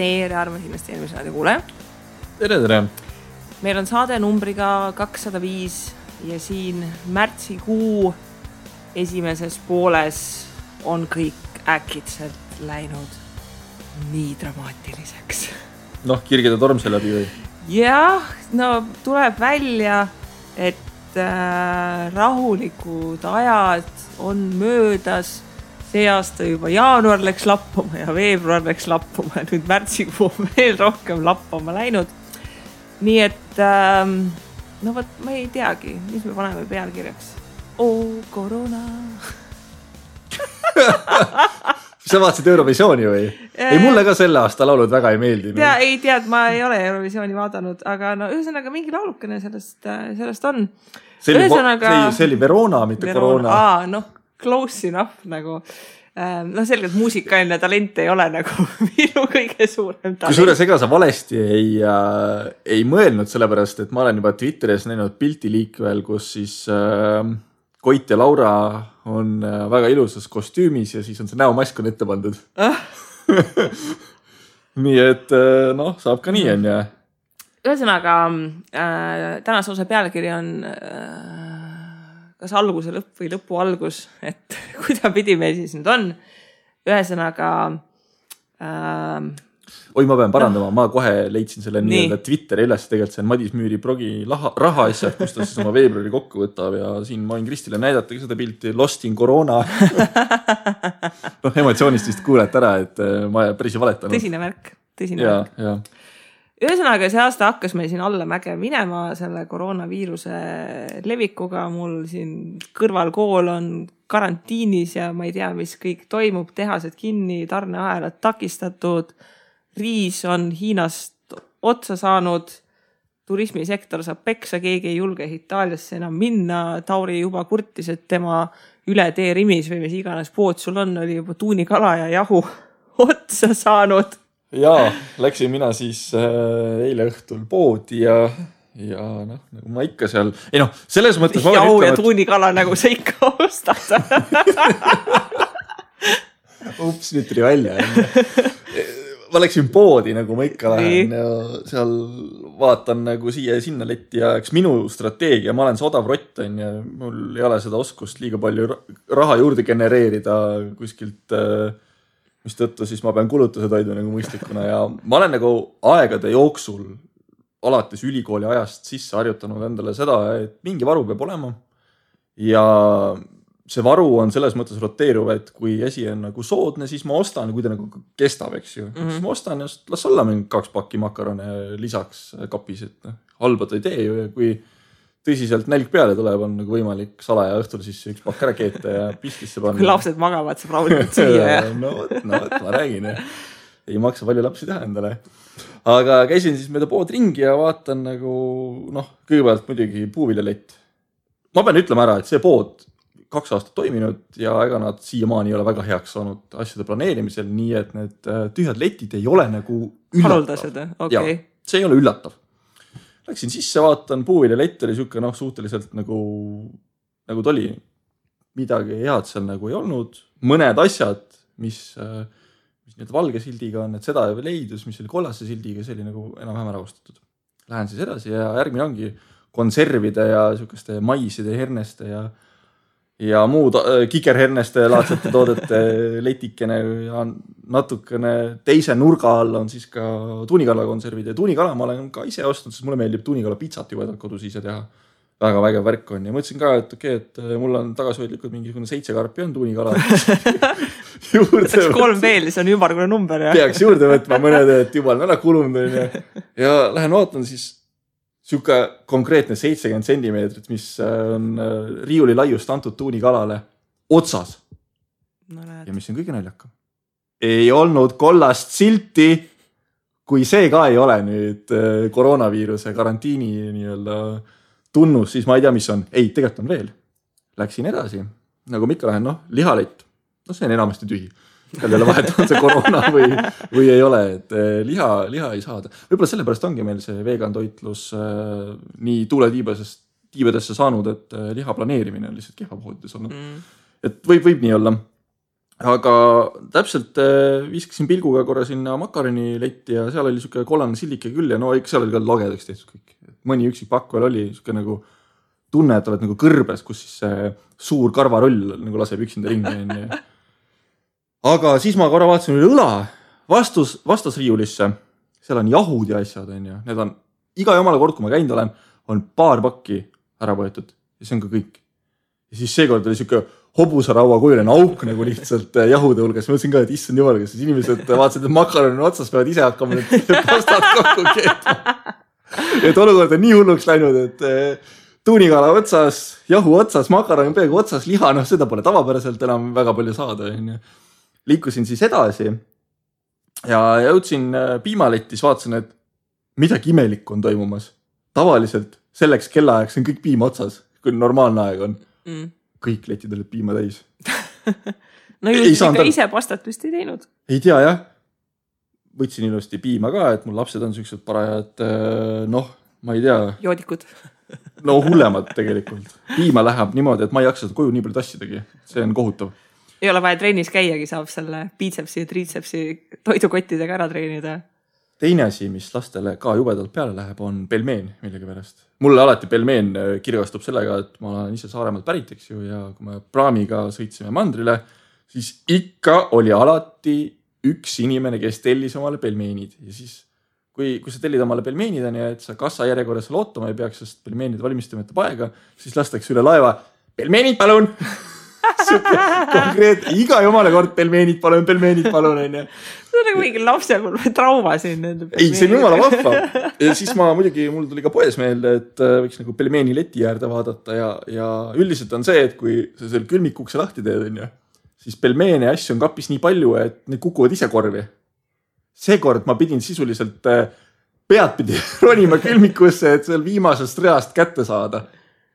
tere, armas investeerimisraadi kuule. Tere. Meil on saade numbriga 205 ja siin märtsikuu esimeses pooles on kõik äkitselt läinud nii dramaatiliseks. Kirgide torm see läbi või? Jah, tuleb välja, et rahulikud ajad on möödas. See aasta juba jaanuar läks lappuma ja veebruar läks lappuma ja nüüd märtsikuu veel rohkem lappama läinud. Nii et, ma ei teagi, mis me paneme pealkirjaks. Koroona. Sa vaatasid Eurovisiooni või? Ei, mulle ka selle aasta laulud väga ei meeldi. Ei tead, ma ei ole Eurovisiooni vaadanud, aga ühesõnaga mingi laulukene sellest on. See oli Verona, mitte Koroona. Close enough nagu. Selgelt muusikaline talent ei ole nagu minu kõige suurem talent. Kui suures ega sa valesti ei mõelnud, sellepärast, et ma olen juba Twitteris näinud pilti liikvel, kus siis Koit ja Laura on väga ilusas kostüümis ja siis on see näomask on ette pandud. Nii et saab ka nii on ja. Ühesõnaga, tänase osa pealkiri on kas alguse lõpp või lõpu algus, et kuida pidi meil siis nüüd on. Ühesõnaga... Oi, ma pean parandama, ma kohe leidsin selle nii-öelda Twitteri üles, tegelikult see on Madis Müüri blogi raha asjad, kus ta siis oma veebruari kokku võtab ja siin ma võin Kristile näidata seda pilti Lost in Corona. Emotsioonist vist kuulete ära, et ma päris ei valetanud. Tõsine märk. Ja. Ühesõnaga, see aasta hakkas meil siin alla mäge minema selle koroonaviiruse levikuga. Mul siin kõrvalkool on karantiinis ja ma ei tea, mis kõik toimub. Tehased kinni, tarneahelad takistatud. Riis on Hiinast otsa saanud. Turismisektor saab peksa, keegi ei julge Itaaliasse enam minna. Tauri juba kurtis, et tema üle tee Rimis või mis iganes pood sul on, oli juba tuunikala ja jahu otsa saanud. Jaa, läksin mina siis eile õhtul poodi ja nagu ma ikka seal... selles mõttes... Jau ja tuunikala nagu sa ikka ostad. Ups, nüüd tuli välja. Ma läksin poodi, nagu ma ikka lähen ja seal vaatan nagu siia ja sinna letti ja eks minu strateegia, ma olen see odav rott on ja mul ei ole seda oskust liiga palju raha juurde genereerida kuskilt... mis tõttu siis ma pean kulutused hoidma nagu mõistlikuna ja ma olen nagu aegade jooksul alates ülikooli ajast sisse harjutanud endale seda, et mingi varu peab olema ja see varu on selles mõttes roteeruv, et kui esi on nagu soodne, siis ma ostan, kui ta nagu kestab, eks ju. Siis ma ostan ja las olla mingi 2 pakki makarone lisaks kapis, et halba ta ei tee ju ja kui tõsiselt nälg peale tuleb, on nagu võimalik salaja õhtul siis üks pakk ära keeta ja pistisse panna. Kui lapsed magavad, saab rahulikult süüa. No, ma räägin. Ei maksa palju lapsi teha endale. Aga käisin siis mööda pood ringi ja vaatan nagu, kõigepealt muidugi puuviljalett. Ma pean ütlema ära, et see pood 2 aastat toiminud ja ega nad siiamaani ei ole väga heaks saanud asjade planeerimisel, nii et need tühjad letid ei ole nagu üllatav. Haruldased, okei. Ja, see ei ole üllatav. Läksin sisse, vaatan, puuviljalett oli siuke suhteliselt nagu ta oli. Midagi head seal nagu ei olnud. Mõned asjad, mis need valge sildiga on, et seda leidus, mis oli kollase sildiga, see oli nagu enam-vähem ära ostetud. Lähen siis edasi ja järgmine ongi konservide ja siukeste maiside, herneste ja muud kikerherneste laadsete toodete letikene ja natukene teise nurga all on siis ka tuunikala konservid ja tuunikala ma olen ka ise ostnud, sest mulle meeldib tuunikala pitsat juba kodus ise teha. Väga vägev värk on ja mõtlesin ka, et et mul on tagasihoidlikud mingisugune 7 karpi on tuunikala. Võtaks 3 veel, see on ümmargune number. Peaks juurde võtma mõned, et juba on ära kulunud ja lähen vaatan siis siuke konkreetne 70 centimeetrit, mis on riiuli laiust antud tuunikalale otsas. Ja mis on kõige naljakam. Ei olnud kollast silti, kui see ka ei ole nüüd koroonaviiruse karantiini nii-öelda tunnus, siis ma ei tea, mis on. Ei, tegelikult on veel. Läksin edasi. Nagu ma ikka lähen, lihalett. See on enamasti tühi. Kellele vahet on see koroona või ei ole, et liha ei saada. Võib-olla sellepärast ongi meil see vegan toitlus nii tuuletiibadesse saanud, et liha planeerimine on lihtsalt kehva poodides olnud. Et võib nii olla. aga täpselt viskasin pilguga korra sinna makaroniletti ja seal oli siuke kollane sillike küll ja no ikka seal oli ka lagedaks tehtud kõik. Mõni üksik pakk veel oli siuke nagu tunne, et oled nagu kõrbes, kus siis see suur karvarull nagu laseb üksinda ringi. Aga siis ma korra vaatasin üle õla vastasriiulisse. Seal on jahud ja asjad. Need on iga jumala kord, kui ma käinud olen, on paar pakki ära võetud. Ja see on ka kõik. Ja siis seekord oli siuke hobusaraua kujuline auk nagu lihtsalt jahude hulgas. Ma mõtlesin ka, et issand jumal, kas inimesed vaatasid, et makaron on otsas, peavad ise hakkama need pastad kokku keetma. Et olukord on nii hulluks läinud, et tuunikala otsas, jahu otsas, makaron peaaegu otsas, liha, seda pole tavapäraselt enam väga palju saada. Liikusin siis edasi ja jõudsin piimalettis, vaatasin, et midagi imelikku on toimumas. Tavaliselt selleks kellaajaks on kõik piima otsas, kui normaalne aeg on. Kõik letid olid piima täis. No ilusti ka ise pastat vist ei teinud. Ei tea, jah. Võtsin ilusti piima ka, et mul lapsed on sellised parajad, ma ei tea. Joodikud. No hullemad tegelikult. Piima läheb niimoodi, et ma ei jaksa seda koju nii palju tassidagi. See on kohutav. Ei ole vaja trennis käiagi, saab selle biitsepsi ja triitsepsi toidukottidega ära treenida. Teine asi, mis lastele ka jubedalt peale läheb, on pelmeen millegi pärast. Mulle alati pelmeen kirgastub sellega, et ma olen ise Saaremaalt pärit, eks ju, ja kui me praamiga sõitsime mandrile, siis ikka oli alati üks inimene, kes tellis omale pelmeenid. Ja siis, kui sa tellid omale pelmeenid, et sa kassa järjekorras seal ootama ei peaks, sest pelmeenid valmistama ette paega, siis lastakse üle laeva, pelmeenid palun! Konkreet, iga jumala kord pelmeenid palun. See on nagu mingi lapsepõlve trauma siin. Ei, see on jumala vahva. Ja siis mul tuli ka poes meelde, et võiks nagu pelmeeni leti äärde vaadata ja üldiselt on see, et kui sa seal külmikukse lahti teed, siis pelmeene asju on kapis nii palju, et need kukuvad ise korvi. Seekord ma pidin sisuliselt peadpidi ronima külmikusse, et seal viimasest reast kätte saada.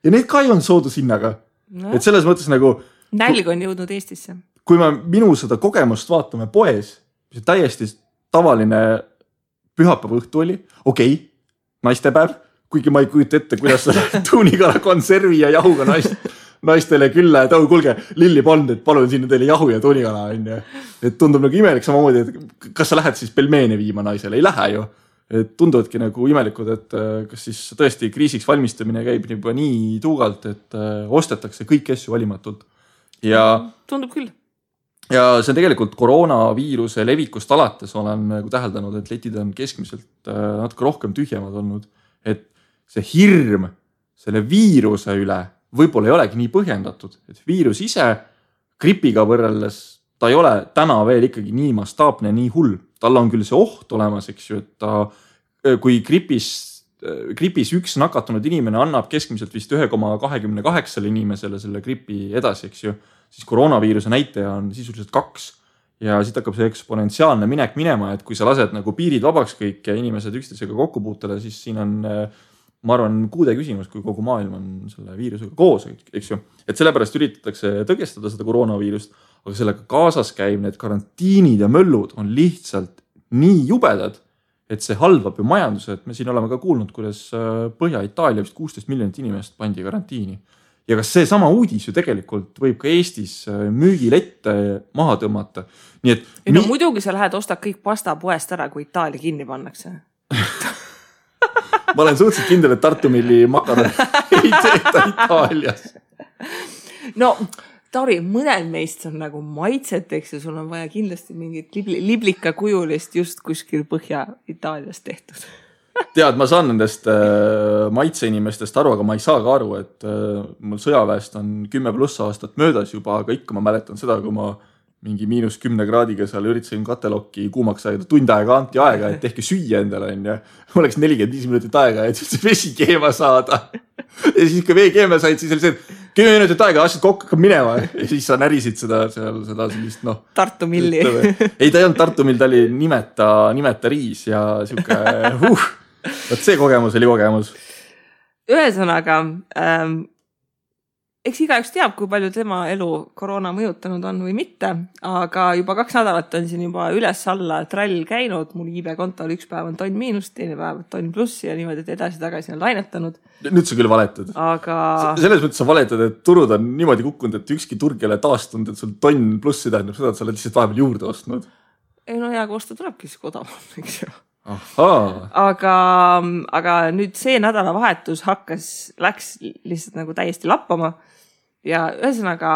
Ja need ka ei on soodushinnaga. No. Et selles mõttes nagu nälg on jõudnud Eestisse. Kui me minu seda kogemust vaatame poes, mis täiesti tavaline pühapäeva õhtu oli, okei, naistepäev, kuigi ma ei kujuta ette, kuidas sa tuunikala konservi ja jahuga naistele külla, et kuulge, Lilli Pond, et palun sinna teile jahu ja tuunikala. Et tundub nagu imelik samamoodi, et kas sa lähed siis pelmeene viima naisele? Ei lähe ju. Et tunduvadki nagu imelikud, et kas siis tõesti kriisiks valmistamine käib juba nii tuugalt, et ostetakse kõik asju valimatult. Ja tundub küll. Ja see on tegelikult koroonaviiruse levikust alates olen nagu täheldanud, et letid on keskmiselt natuke rohkem tühjemad olnud. Et see hirm selle viiruse üle võib-olla ei olegi nii põhjendatud. Et viirus ise gripiga võrreldes, ta ei ole täna veel ikkagi nii mastaapne, nii hull. Tal on küll see oht olemas, eks ju, et kui gripis üks nakatunud inimene annab keskmiselt vist 1,28 inimesele selle gripi edasi, eks ju, siis koroonaviiruse näitaja on sisuliselt 2 ja siit hakkab see eksponentsiaalne minek minema, et kui sa lased nagu piirid vabaks kõik ja inimesed üksteisega kokku puutele, siis siin on, ma arvan, kuude küsimus, kui kogu maailm on selle viirusega koos, eks ju. Et sellepärast üritatakse tõgestada seda koroonaviirust, aga sellega kaasas käib need karantiinid ja möllud on lihtsalt nii jubedad, et see halvab ju majanduse, et me siin oleme ka kuulnud, kuidas Põhja-Itaalia vist 16 miljonit inimest pandi karantiini. Ja kas see sama uudis ju tegelikult võib ka Eestis müügilette maha tõmmata. Nii et no muidugi sa lähed ostad kõik pasta poest ära, kui Itaalia kinni pannakse. Ma olen suhteliselt kindel, et Tartu Milli makaron ei tehta Itaalias. No Tauri, mõned meist on nagu maitseteks ja sul on vaja kindlasti mingit liblika kujulist just kuskil Põhja-Itaalias tehtud. Tead, ma saan nendest maitseinimestest aru, aga ma ei saa ka aru, et mul sõjaväest on 10+ aastat möödas juba, aga ikka ma mäletan seda, kui ma mingi -10 kraadiga seal üritasin katelokki kuumaks aega, tund aega anti aega, et tehke süüa endale. Mul oleks 45 minutit aega, et see vesi keema saada. Ja siis kui vee keema said, siis oli see, 10 minutit aega, asjad kokku hakkab minema. Ja siis sa närisid seda sellist, Tartu Milli. Ei, ta ei olnud Tartu Mill, ta oli nimeta riis ja siuke, Võt see kogemus oli kogemus. Ühesõnaga, eks igaüks teab, kui palju tema elu koroona mõjutanud on või mitte, aga juba 2 nädalat on siin juba üles-alla trall käinud, mul iibe-kontol üks päev on tonn miinust, teine päev tonn plussi ja niimoodi, et edasi-tagasi on lainetanud. Nüüd sa küll valetad. Aga... Selles mõttes sa valetad, et turud on niimoodi kukkunud, et ükski turg ei ole taastunud, et sul tonn plussi tähendab seda, et sa oled lihtsalt vahepeal juurde ostnud. Ei no hea, kui osta tulebki siis odavam, eks ju. Aga nüüd see nädalavahetus läks lihtsalt nagu täiesti lappama ja ühesõnaga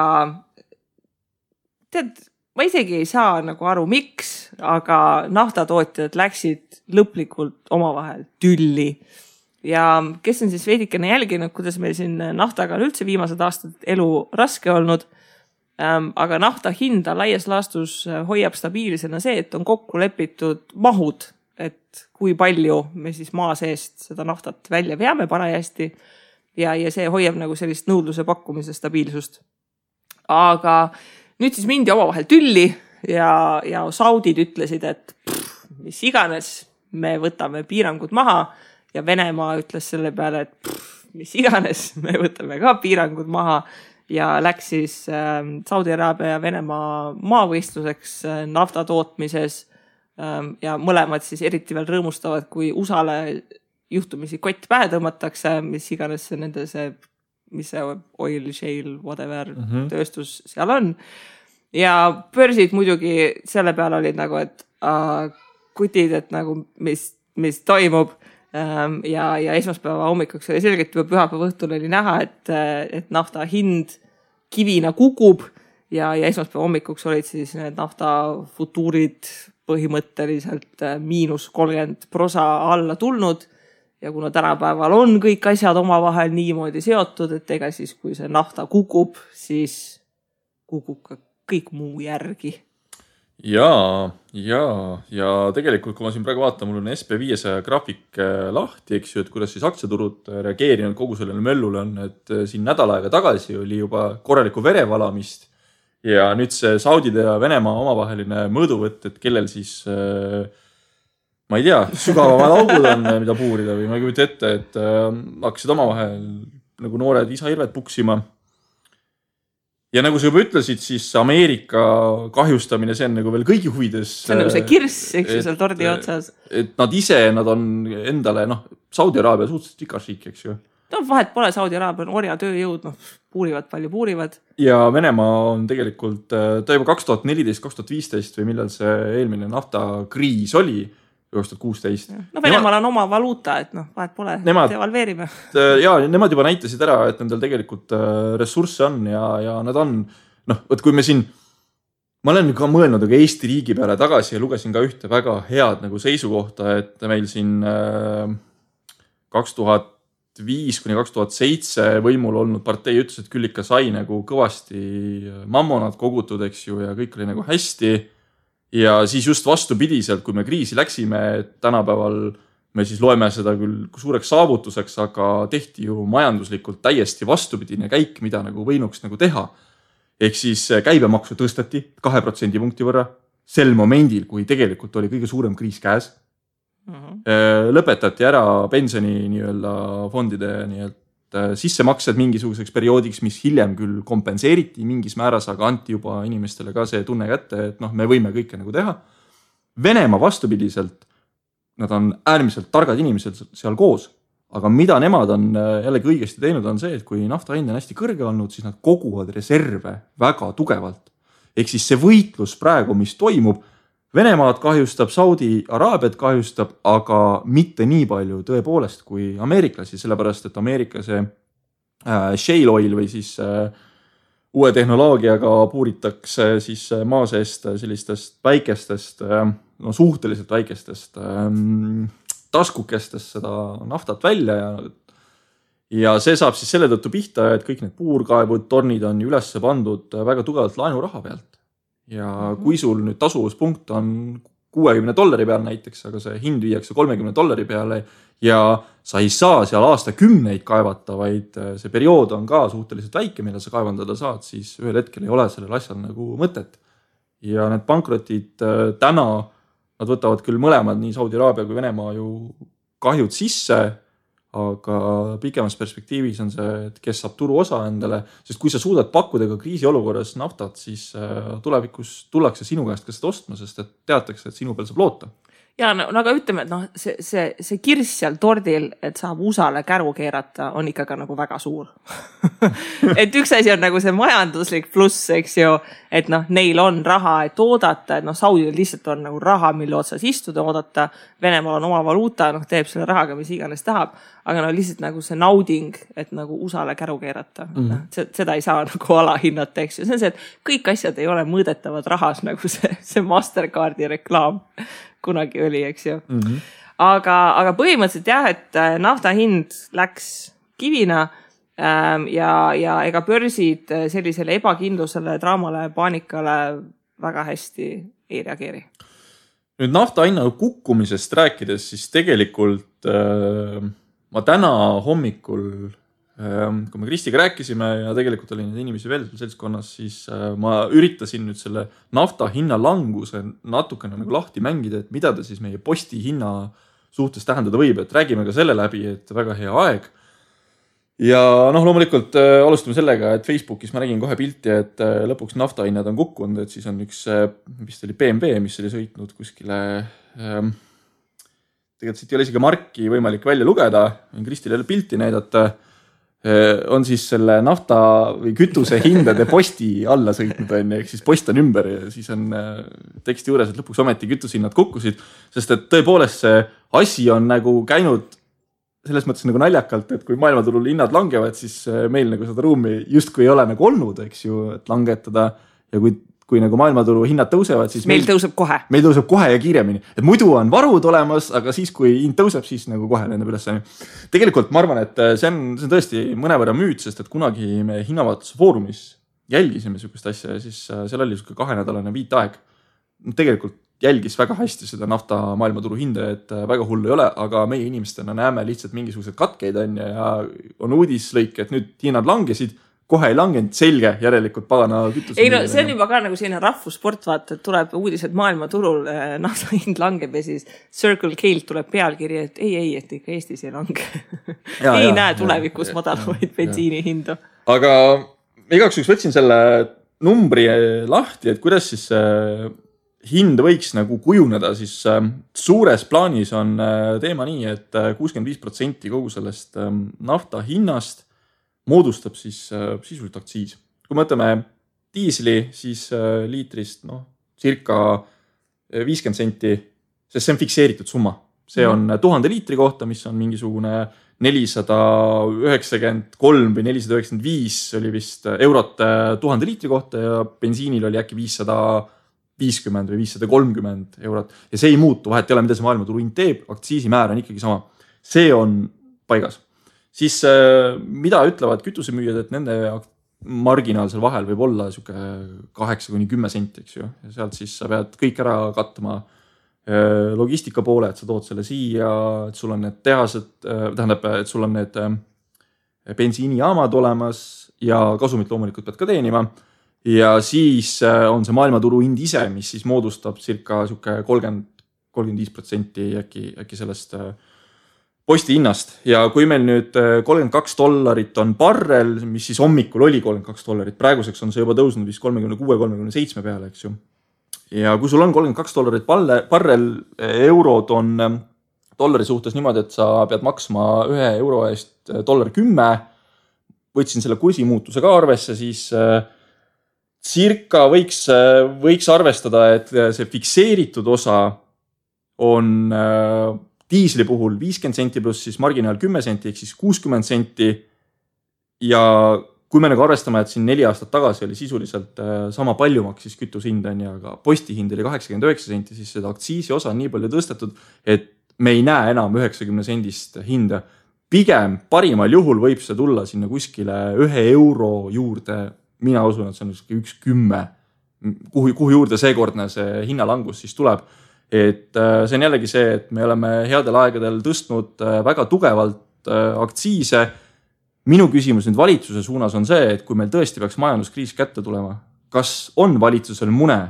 tead, ma isegi ei saa nagu aru, miks, aga naftatootjad läksid lõplikult omavahel tülli ja kes on siis veidikene jälginud, kuidas meil siin naftaga on üldse viimased aastad elu raske olnud, aga nafta hinda laias laastus hoiab stabiilsena see, et on kokku lepitud mahud, et kui palju me siis maa seest seda naftat välja veame parajasti ja see hoiab nagu sellist nõudluse pakkumise stabiilsust. Aga nüüd siis mindi omavahel tülli ja saudid ütlesid, et mis iganes, me võtame piirangud maha ja Venemaa ütles selle peale, et mis iganes, me võtame ka piirangud maha ja läks siis Saudi Araabia ja Venemaa maavõistluseks nafta tootmises ja mõlemad siis eriti veel rõõmustavad, kui USA-le juhtumisi kott pähe tõmmatakse, mis iganes nende mis see oil, shale, whatever tööstus seal on. Ja börsid muidugi selle peale olid nagu, et kutid, et nagu mis toimub ja esmaspäeva hommikuks oli selgelt juba pühapäeva õhtul oli näha, et nafta hind kivina kukub ja esmaspäeva hommikuks olid siis need nafta futuurid põhimõtteliselt -30% alla tulnud ja kuna tänapäeval on kõik asjad omavahel niimoodi seotud, et ega siis kui see nafta kukub, siis kukub ka kõik muu järgi. Ja tegelikult, kui ma siin praegu vaatan, mul on SP500 graafik lahti, eks ju, et kuidas siis aktsiaturud reageerinud kogu sellele möllule on, et siin nädal aega tagasi oli juba korralikku verevalamist ja nüüd see Saudide ja Venemaa omavaheline mõõduvõtt, et kellel siis, ma ei tea, sügavamad augud on, mida puurida või ma ei kujuta ette, et hakkasid omavahel nagu noored isa-hirved puksima. Ja nagu sa juba ütlesid, siis Ameerika kahjustamine, see on nagu veel kõigi huvides. See on nagu see kirss, eks ju, seal tordi otsas. Et nad on endale, Saudi Araabia suhteliselt rikas riik, eks ju. Vahet pole, Saudi Araabia on orja tööjõud, puurivad palju puurivad. Ja Venemaa on tegelikult, ta juba 2014-2015 või millal see eelmine naftakriis oli, 2016. Venemaal on oma valuuta, et vahet pole, devalveerime. Ja nemad juba näitasid ära, et nendel tegelikult ressursse on ja nad on, võt kui me siin, ma olen ka mõelnud Eesti riigi peale tagasi ja lugesin ka ühte väga head nagu seisukohta, et meil siin 2005-2007 võimul olnud partei ütles, et küll ikka sai nagu kõvasti mammonad kogutud, eks ju, ja kõik oli nagu hästi. Ja siis just vastupidiselt, kui me kriisi läksime, et tänapäeval me siis loeme seda küll suureks saavutuseks, aga tehti ju majanduslikult täiesti vastupidine käik, mida nagu võinuks nagu teha. Ehk siis käibemaksu tõstati 2% punkti võrra sel momendil, kui tegelikult oli kõige suurem kriis käes. Lõpetati ära pensioni fondide sissemaksed mingisuguseks perioodiks, mis hiljem küll kompenseeriti mingis määras, aga anti juba inimestele ka see tunne kätte, et me võime kõike nagu teha. Venemaa vastupidiselt, nad on äärmiselt targad inimesed seal koos, aga mida nemad on jällegi õigesti teinud on see, et kui nafta hind on hästi kõrge olnud, siis nad koguvad reserve väga tugevalt. Ehk siis see võitlus praegu, mis toimub, Venemaad kahjustab, Saudi Araabiat kahjustab, aga mitte nii palju tõepoolest kui ameeriklasi, sellepärast et Ameerika see shale oil või siis uue tehnoloogiaga puuritakse siis maa seest sellistest väikestest, suhteliselt väikestest taskukestest seda naftat välja ja see saab siis selle tõttu pihta, et kõik need puurkaevud, tornid on üles pandud väga tugevalt laenuraha pealt. Ja kui sul nüüd tasuvuspunkt on $60 peal näiteks, aga see hind viiakse $30 peale ja sa ei saa seal aastakümneid kaevata, vaid see periood on ka suhteliselt väike, mille sa kaevandada saad, siis ühel hetkel ei ole sellel asjal nagu mõtet. Ja need pankrotid täna, nad võtavad küll mõlemad, nii Saudi Araabia kui Venemaa ju kahjud sisse, aga pikemas perspektiivis on see, et kes saab turu osa endale, sest kui sa suudad pakkuda ka kriisiolukorras naftat, siis tulevikus tullakse sinu käest ka seda ostma, sest et teatakse, et sinu peal saab loota. Ja no aga ütleme, et see kirss seal tordil, et saab USA-le käru keerata, on ikka ka nagu väga suur. Et üks asi on nagu see majanduslik pluss, eks ju, et neil on raha, et oodata, et Saudil lihtsalt on nagu raha, mille otsas istuda, oodata. Venemaal on oma valuuta, teeb selle rahaga, mis iganes tahab, aga lihtsalt nagu see nauding, et nagu USA-le käru keerata. Seda ei saa nagu alahinnata, eks ju. See on see, et kõik asjad ei ole mõõdetavad rahas, nagu see Mastercardi reklaam kunagi oli, eks ju. Aga põhimõtteliselt jah, et nafta hind läks kivina ja ega börsid sellisele ebakindlusele, draamale, paanikale väga hästi ei reageeri. Nüüd nafta hinna kukkumisest rääkides, siis tegelikult ma täna hommikul, kui me Kristiga rääkisime ja tegelikult oli neid inimesi veel seltskonnas, siis ma üritasin nüüd selle nafta hinna languse natukene nagu lahti mängida, et mida ta siis meie posti hinna suhtes tähendada võib, et räägime ka selle läbi, et väga hea aeg. Ja loomulikult alustame sellega, et Facebookis ma nägin kohe pilti, et lõpuks nafta hinnad on kukkunud, et siis on üks, vist oli BMW, mis oli sõitnud kuskile, tegelikult siit ei ole isegi marki võimalik välja lugeda, Kristile pilti näidata, on siis selle nafta või kütuse hindade posti alla sõitnud, ehk siis post on ümber ja siis on teksti juures, et lõpuks ometi kütusehinnad kukkusid, sest et tõepoolest see asi on nagu käinud selles mõttes nagu naljakalt, et kui maailmaturul hinnad langevad, siis meil nagu seda ruumi justkui ei ole nagu olnud, eks ju, et langetada ja kui nagu maailmaturu hinnad tõusevad, siis meil tõuseb kohe. Meil tõuseb kohe ja kiiremini. Et muidu on varud olemas, aga siis, kui hind tõuseb, siis nagu kohe lendab üles. Tegelikult ma arvan, et see on tõesti mõnevõrra müüt, sest et kunagi me hinnavaatuse foorumis jälgisime sükest asja ja siis seal oli 2-nädalane viitaeg. Tegelikult jälgis väga hästi seda nafta maailmaturu hinda, et väga hullu ei ole, aga meie inimestena näeme lihtsalt mingisugused katkeid ja on uudislõik, et nüüd hinnad langesid, kohe ei langenud, selge, järelikult pagana kütus. Ei see on juba ka nagu selline rahvussport, vaata, et tuleb uudised maailmaturul, nafta hind langeb ja siis Circle K-lt tuleb pealkiri, et ei, et ikka Eestis ei lange. Ei näe tulevikus madalavaid bensiini hindu. Aga igaks üks võtsin selle numbri lahti, et kuidas siis hind võiks nagu kujuneda, siis suures plaanis on teema nii, et 65% kogu sellest nafta hinnast moodustab siis sisuliselt aktsiis. Kui mõtleme diisli, siis liitrist circa 50 senti, sest see on fikseeritud summa. See on 1000 liitri kohta, mis on mingisugune 493 või 495 oli vist eurot 1000 liitri kohta ja bensiinil oli äkki 550 või 530 eurot. Ja see ei muutu, vahet ei ole, mida see maailmaturu hind teeb, aktsiisimäär on ikkagi sama. See on paigas. Siis mida ütlevad kütusemüüjad, et nende marginaal seal vahel võib olla 8-10 senti, eks ju. Ja sealt siis sa pead kõik ära katma logistika poole, et sa tood selle siia, et sul on need tehased, tähendab, et sul on need bensiinijaamad olemas ja kasumit loomulikult pead ka teenima. Ja siis on see maailmaturu hind ise, mis siis moodustab circa 30-35% äkki sellest posti hinnast. Ja kui meil nüüd $32 on barrel, mis siis hommikul oli $32, praeguseks on see juba tõusnud vist 36-37 peale, eks ju. Ja kui sul on $32 barrel, eurod on dollari suhtes niimoodi, et sa pead maksma €1 eest $10, võtsin selle kursimuutuse ka arvesse, siis circa võiks arvestada, et see fikseeritud osa on diisli puhul 50 senti pluss siis marginaal 10 senti, ehk siis 60 senti. Ja kui me nagu arvestame, et siin 4 aastat tagasi oli sisuliselt sama palju maksis kütushind, aga postihind oli 89 senti, siis seda aktsiisi osa on nii palju tõstetud, et me ei näe enam 90 sendist hinda. Pigem parimal juhul võib see tulla sinna kuskile €1 juurde. Mina usun, et see on 1,10, kuhu juurde seekordne see hinnalangus siis tuleb. Et see on jällegi see, et me oleme headel aegadel tõstnud väga tugevalt aktsiise. Minu küsimus nüüd valitsuse suunas on see, et kui meil tõesti peaks majanduskriis kätte tulema, kas on valitsusel mune,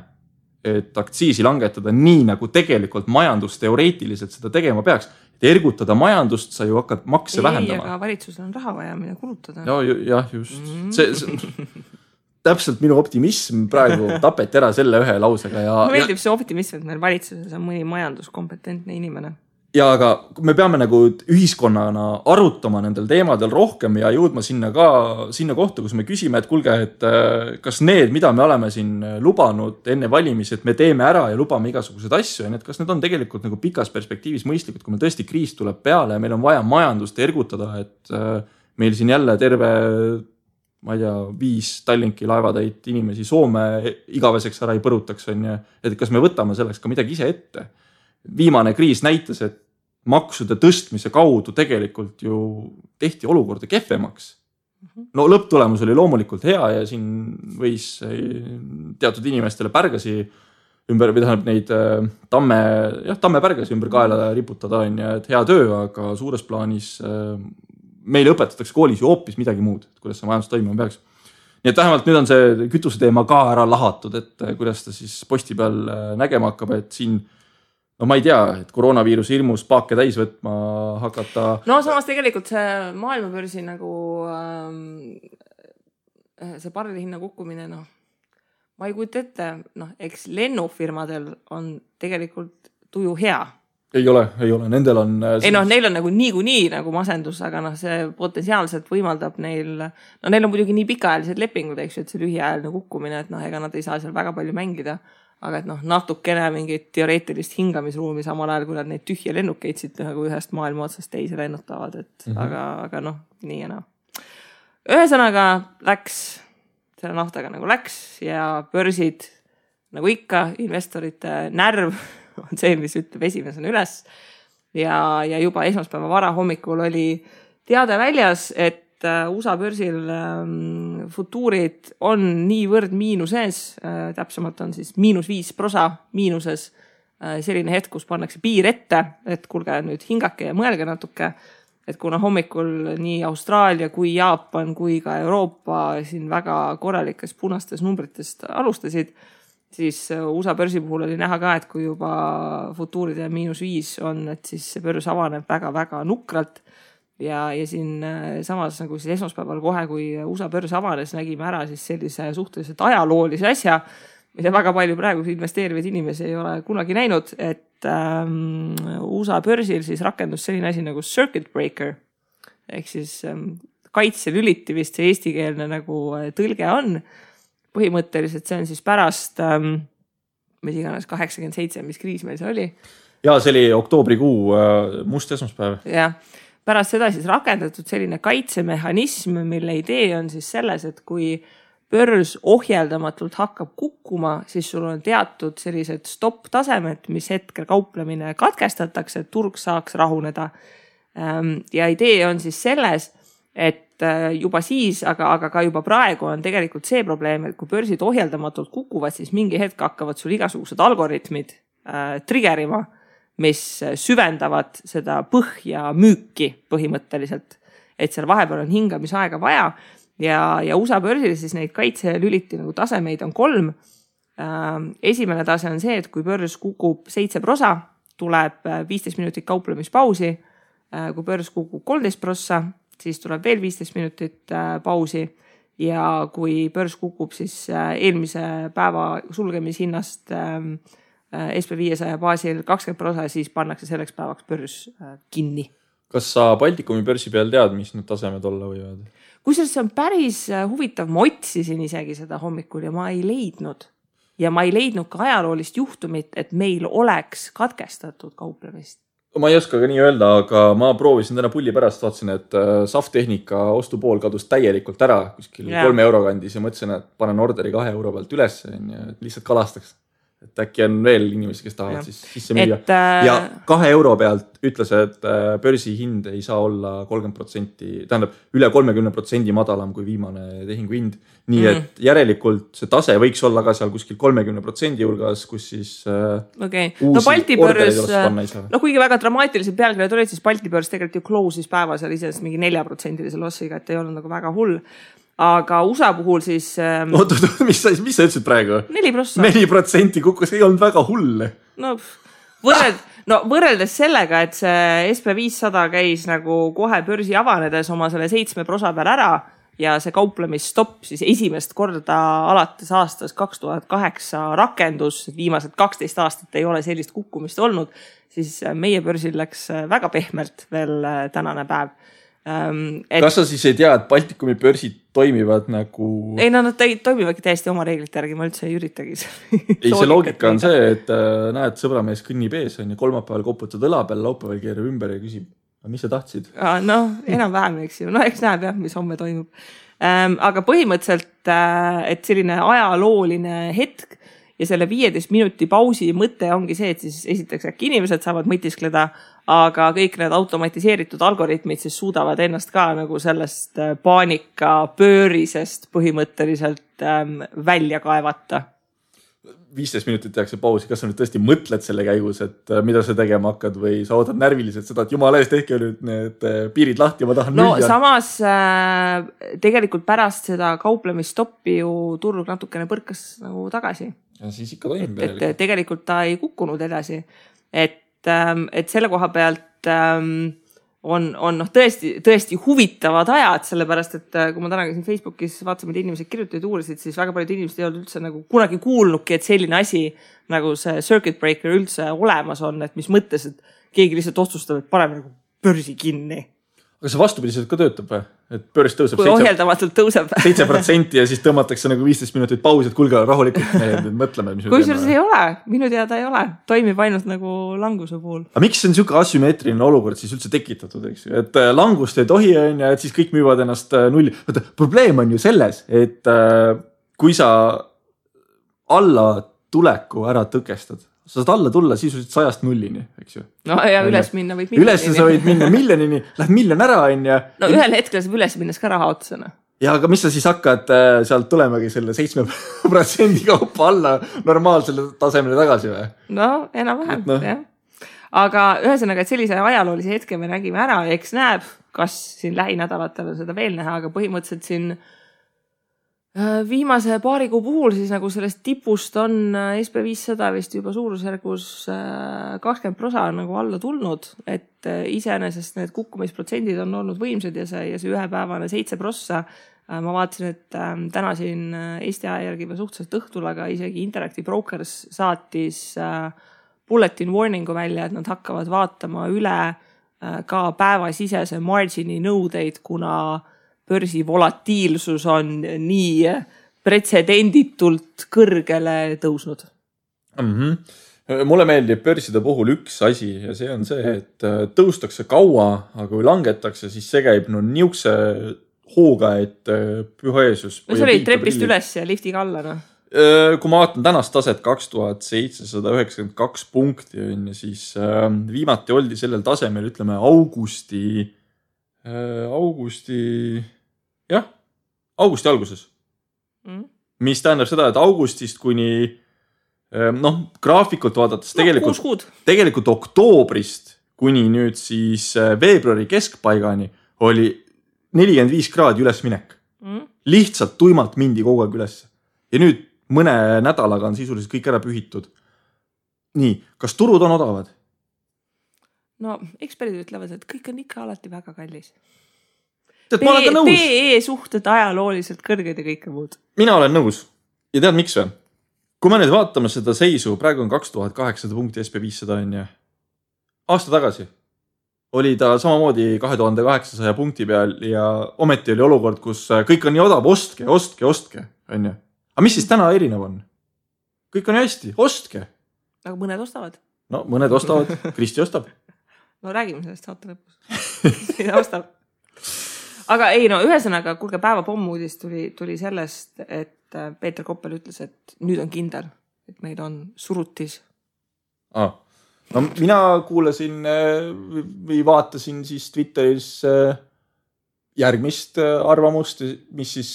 et aktsiisi langetada nii, nagu tegelikult majandusteoreetiliselt seda tegema peaks, et ergutada majandust, sa ju hakkad makse vähendama. Aga valitsusel on raha vaja, mida kulutada. Jah, just. See täpselt minu optimism praegu tapeti ära selle ühe lausega. Mulle meeldib see optimism, et meil valitsuses on mõni majanduskompetentne inimene. Ja aga me peame nagu ühiskonnana arutama nendel teemadel rohkem ja jõudma sinna kohta, kus me küsime, et kuulge, et kas need, mida me oleme siin lubanud enne valimisi, et me teeme ära ja lubame igasuguseid asju, ja kas need on tegelikult nagu pikas perspektiivis mõistlikud, kui meil tõesti kriis tuleb peale ja meil on vaja majandust ergutada, et meil siin jälle terve, ma ei tea, 5 Tallinki laevatäit inimesi Soome igaveseks ära ei põrutaks, et kas me võtame selleks ka midagi ise ette. Viimane kriis näitas, et maksude tõstmise kaudu tegelikult ju tehti olukorda kehvemaks. No lõpptulemus oli loomulikult hea ja siin võis teatud inimestele pärgasi ümber, või tähendab neid tamme pärgasi ümber kaela riputada, et hea töö, aga suures plaanis meile õpetatakse koolis ju hoopis midagi muud, kuidas see majandus toimima peaks. Nii et vähemalt nüüd on see kütuse teema ka ära lahatud, et kuidas ta siis posti peal nägema hakkab, et siin no ma ei tea, et koroonaviirus hirmus paake täis võtma hakata. No samas tegelikult see maailmabörsi nagu see barrelihinna kukkumine, ma ei kujuta ette, eks lennufirmadel on tegelikult tuju hea. Ei ole, nendel on... neil on nagu niikuinii nagu masendus, aga see potentsiaalselt võimaldab neil on muidugi nii pikaajalised lepingud, eks ju, et see lühiajaline kukkumine, et ega nad ei saa seal väga palju mängida. Aga et natukene mingit teoreetilist hingamisruumi samal ajal, kui nad neid tühje lennukeid siit nagu ühest maailma otsast teise lennutavad, et aga nii ja Ühesõnaga läks, selle naftaga nagu läks ja börsid nagu ikka, investorite närv on see, mis ütleb esimesena üles ja juba esmaspäeva vara hommikul oli teade väljas, et USA börsil futuurid on niivõrd miinuses, täpsemalt on siis -5% miinuses, selline hetk, kus pannakse piir ette, et kuulge nüüd hingake ja mõelge natuke, et kuna hommikul nii Austraalia kui Jaapan kui ka Euroopa siin väga korralikes punastes numritest alustasid, siis USA börsi puhul oli näha ka, et kui juba futuuride -5 on, et siis see börs avaneb väga-väga nukralt. Ja siin samas nagu siis esmaspäeval kohe, kui USA börs avanes, nägime ära siis sellise suhteliselt ajaloolise asja, mida väga palju praegu investeerivaid inimesi ei ole kunagi näinud, et USA börsil siis rakendus selline asi nagu circuit breaker, ehk siis kaitselüliti vist see eestikeelne nagu tõlge on. Põhimõtteliselt see on siis pärast, mis iganes 87, mis kriis meil see oli. Ja see oli oktoobrikuu must esmaspäev. Jah. Pärast seda siis rakendatud selline kaitsemehhanism, mille idee on siis selles, et kui börs ohjeldamatult hakkab kukkuma, siis sul on teatud sellised stopp-tasemed, mis hetkel kauplemine katkestatakse, et turg saaks rahuneda. Ja idee on siis selles, et juba siis, aga ka juba praegu on tegelikult see probleem, et kui börsid ohjeldamatult kukuvad, siis mingi hetk hakkavad sul igasugused algoritmid triggerima, mis süvendavad seda põhja müüki põhimõtteliselt, et seal vahepeal on hingamisaega vaja ja USA börsil siis neid kaitselüliti nagu tasemeid on 3. Esimene tase on see, et kui börs kukub 7%, tuleb 15 minutit kauplemispausi, kui börs kukub 13%, siis tuleb veel 15 minutit pausi ja kui börs kukub siis eelmise päeva sulgemishinnast SP500 baasil 20%, siis pannakse selleks päevaks börs kinni. Kas sa Baltikumi börsi peal tead, mis need tasemed olla võivad? Kusjuures see on päris huvitav, ma otsisin isegi seda hommikul ja ma ei leidnud. Ja ma ei leidnud ka ajaloolist juhtumit, et meil oleks katkestatud kauplemist. Ma ei oska ka nii öelda, aga ma proovisin täna pulli pärast, vaatasin, et SAF-tehnika ostupool kadus täielikult ära kuskil 3 euro kandis ja mõtlesin, et panen orderi 2 euro pealt üles ja lihtsalt kalastaks. Et äkki on veel inimesi, kes tahavad siis sisse müüa. Ja 2 euro pealt ütles, et börsi hind ei saa olla 30%, tähendab üle 30% madalam kui viimane tehingu hind. Nii et järelikult see tase võiks olla ka seal kuskil 30% hulgas, kus siis uusi ordereid oleks panna ei saa. No kuigi väga dramaatilised pealkirjad olid, siis Balti börs tegelikult ju close'is päeva seal isest mingi 4% lossiga, et ei olnud nagu väga hull. Aga USA puhul siis... mis sa ütlesid praegu? 4%. 4% kukkus, ei olnud väga hull. No võrreldes sellega, et see SP500 käis nagu kohe börsi avanedes oma selle 7 prosa peal ära ja see kauplemisstopp siis esimest korda alates aastast 2008 rakendus, viimased 12 aastat ei ole sellist kukkumist olnud, siis meie börsil läks väga pehmelt veel tänane päev. Kas sa siis ei tea, et Baltikumi börsid toimivad nagu... Ei, nad toimivadki täiesti oma reeglite järgi, ma üldse ei üritagi. Ei, see loogika on see, et näed, sõbramees kõnnib ees, on ja kolmapäeval koputad õla peal, laupäeval keerab ümber ja küsib, mis sa tahtsid? Enam-vähem, eks ju. Eks näeb jah, mis homme toimub. Aga põhimõtteliselt, et selline ajalooline hetk ja selle 15 minuti pausi mõte ongi see, et siis esiteks äkki inimesed saavad mõtiskleda, aga kõik need automatiseeritud algoritmid siis suudavad ennast ka nagu sellest paanika pöörisest põhimõtteliselt välja kaevata. 15 minutit tehakse pausi, kas sa nüüd tõesti mõtled selle käigus, et mida sa tegema hakkad või sa ootad närviliselt seda, et jumala eest tehke nüüd need piirid lahti, ma tahan müüa. Samas tegelikult pärast seda kauplemistoppi ju turg natukene põrkas nagu tagasi. Ja siis ikka toimib. Et tegelikult ta ei kukkunud edasi. Et selle koha pealt on tõesti huvitavad ajad, sellepärast, et kui ma täna käisin Facebookis vaatasin, et inimesed kirjutasid uurisid, siis väga paljud inimesed ei olnud üldse nagu kunagi kuulnudki, et selline asi nagu see circuit breaker üldse olemas on, et mis mõttes, et keegi lihtsalt otsustab, et paneme nagu börsi kinni. Aga see vastupidiselt ka töötab või? Et börs tõuseb kui ohjeldamatult tõuseb 7% ja siis tõmmatakse nagu 15 minutit pausi, et kulge rahulikult mõtleme, mis me kui teeme. Ei ole, minu teada ei ole, toimib ainult nagu languse puhul. Aga miks on niisugune asümmeetriline olukord siis üldse tekitatud, eks ju? Et langust ei tohi, et siis kõik müüvad ennast nulli. Probleem on ju selles, et kui sa alla tuleku ära tõkestad, sa saad alla tulla sisuliselt 100 nullini, eks ju. No ja üles minna võid miljonini. Üles sa võid minna miljonini, lähed miljon ära, on ja... No ühel hetkel saab üles minnes ka raha otsana. Ja aga mis sa siis hakkad sealt tulemagi selle 7% kaupa alla normaalsele tasemele tagasi või? No, enam-vähem, jah. Aga ühesõnaga, et sellise ajaloolise hetke me nägime ära, eks näeb, kas siin lähinädalatel seda veel näha, aga põhimõtteliselt siin viimase paari kuu puhul siis nagu sellest tipust on SP500 vist juba suurusjärgus 20% nagu alla tulnud, et iseenesest need kukkumisprotsendid on olnud võimsad ja see ühepäevane 7%. Ma vaatasin, et täna siin Eesti aja järgi või suhteliselt õhtul, aga isegi Interactive Brokers saatis bulletin warningu välja, et nad hakkavad vaatama üle ka päevasisese margini nõudeid, kuna börsi volatiilsus on nii pretsedenditult kõrgele tõusnud. Mulle meeldib börside puhul üks asi ja see on see, et tõustakse kaua, aga kui langetakse, siis see käib niukse hooga, et püha Jeesus. See oli trepist üles ja liftiga alla, no? Kui ma vaatan tänast taset 2792 punkti, siis viimati oldi sellel tasemel, ütleme, augusti alguses. Mis tähendab seda, et augustist kuni graafikult vaadates tegelikult oktoobrist kuni nüüd siis veebruari keskpaigani oli 45 kraadi ülesminek. Lihtsalt tuimalt mindi kogu aeg üles. Ja nüüd mõne nädalaga on sisuliselt kõik ära pühitud. Nii, kas turud on odavad? No, eksperdid ütlevad, et kõik on ikka alati väga kallis. PE suhted ajalooliselt kõrged ja kõike muud. Mina olen nõus. Ja tead, miks või? Kui me nüüd vaatame seda seisu, praegu on 2800 punkti SP500 on ja aasta tagasi oli ta samamoodi 2800 punkti peal ja ometi oli olukord, kus kõik on nii odav, ostke, on ja. Aga mis siis täna erinev on? Kõik on hästi, ostke. Aga mõned ostavad. No, mõned ostavad, Kristi ostab. No räägime sellest saate lõpus. Mida ostab? Aga ei, no ühesõnaga, kuulge päeva pommuudis tuli sellest, et Peeter Koppel ütles, et nüüd on kindel, et meil on surutis. No mina kuulasin või vaatasin siis Twitteris järgmist arvamust, mis siis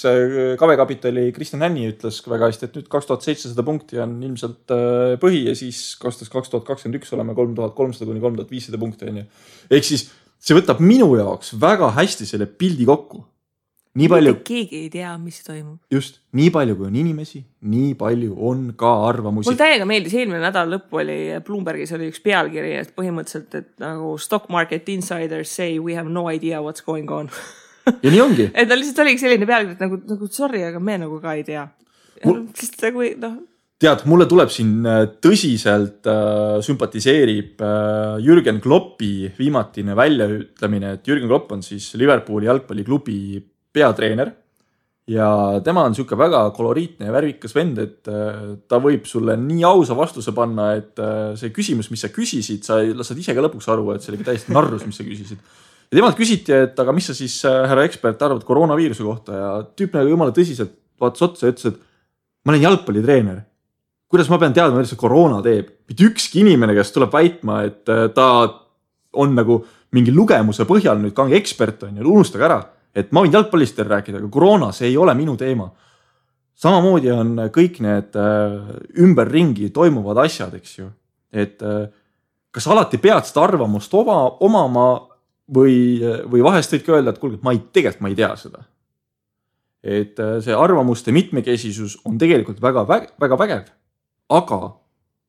KV-kapitali Kristjan Hänni ütles väga hästi, et nüüd 2700 punkti on ilmselt põhi ja siis aastast 2021 oleme 3300 kuni 3500 punkti. Ehk siis see võtab minu jaoks väga hästi selle pildi kokku. nii palju... Keegi ei tea, mis toimub. Just, nii palju kui on inimesi, nii palju on ka arvamusi. Mul täiega meeldis, eelmine nädal lõppu oli Bloombergis oli üks pealkiri, et põhimõtteliselt, et nagu stock market insiders say we have no idea what's going on. Ja nii ongi. Et lihtsalt oligi selline pealkiri, et nagu sorry, aga me nagu ka ei tea. Sest nagu, Tead, mulle tuleb siin tõsiselt sümpatiseerib Jürgen Kloppi viimatine väljaütlemine, et Jürgen Klopp on siis Liverpooli jalgpalliklubi peatreener ja tema on siuke väga koloriitne ja värvikas vend, et ta võib sulle nii ausa vastuse panna, et see küsimus, mis sa küsisid, sa saad ise ka lõpuks aru, et see oli täiesti narrus, mis sa küsisid. Ja temalt küsiti, et aga mis sa siis, härra ekspert, arvad koroonaviiruse kohta ja tüüp nagu jumala tõsiselt vaatas otsa ja ütles, et ma olen jalgpallitreener. Kuidas ma pean teadma, mida see koroona teeb? Mitte ükski inimene, kes tuleb väitma, et ta on nagu mingi lugemuse põhjal nüüd kange ekspert on ja unustage ära, et ma võin jalgpallist rääkida, aga koroona, see ei ole minu teema. Samamoodi on kõik need ümberringi toimuvad asjad, eks ju. Et kas alati pead seda arvamust omama või vahest võid ka öelda, et kuulge, tegelikult ma ei tea seda. Et see arvamuste mitmekesisus on tegelikult väga vägev. Aga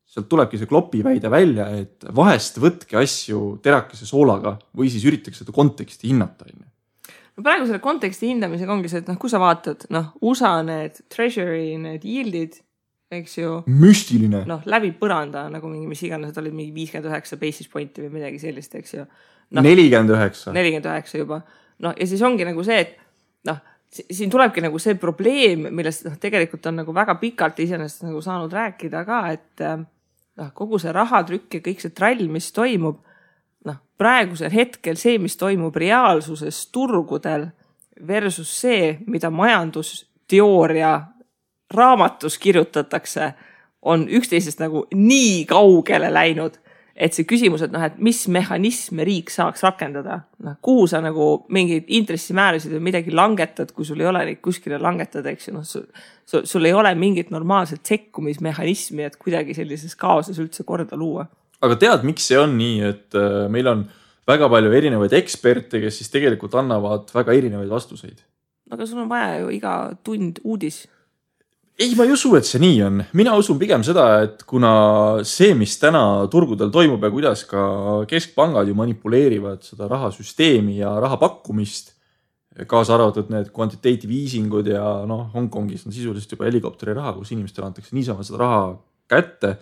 sealt tulebki see Kloppi väide välja, et vahest võtke asju terakese soolaga või siis üritaks seda konteksti hinnata. No praegu selle konteksti hindamisega ongi see, et kui sa vaatad, USA need treasury, need yieldid, eks ju. Müstiline. Läbi põranda, nagu mingi, mis iganes, olid mingi 59 basis pointi või midagi sellist, eks ju. 49. 49 juba. Ja siis ongi nagu see, et siin tulebki nagu see probleem, millest tegelikult on nagu väga pikalt iseenesest nagu saanud rääkida ka, et kogu see rahatrükk ja kõik see trall, mis toimub, praegusel hetkel see, mis toimub reaalsuses turgudel versus see, mida majandusteooria raamatus kirjutatakse, on üksteisest nagu nii kaugele läinud, et see küsimus, et mis mehhanisme riik saaks rakendada, kuhu sa nagu mingid intressimäärasid või midagi langetad, kui sul ei ole neid kuskile langetada, eks ju, sul ei ole mingit normaalset sekkumismehhanismi, et kuidagi sellises kaoses üldse korda luua. Aga tead, miks see on nii, et meil on väga palju erinevaid eksperte, kes siis tegelikult annavad väga erinevaid vastuseid? Aga sul on vaja ju iga tund uudis. Ei, ma ei usu, et see nii on. Mina usun pigem seda, et kuna see, mis täna turgudel toimub ja kuidas ka keskpangad ju manipuleerivad seda rahasüsteemi ja raha pakkumist, kaasa arvatud need quantitative easingud ja Hongkongis on sisuliselt juba helikopteri raha, kus inimestele antakse niisama seda raha kätte.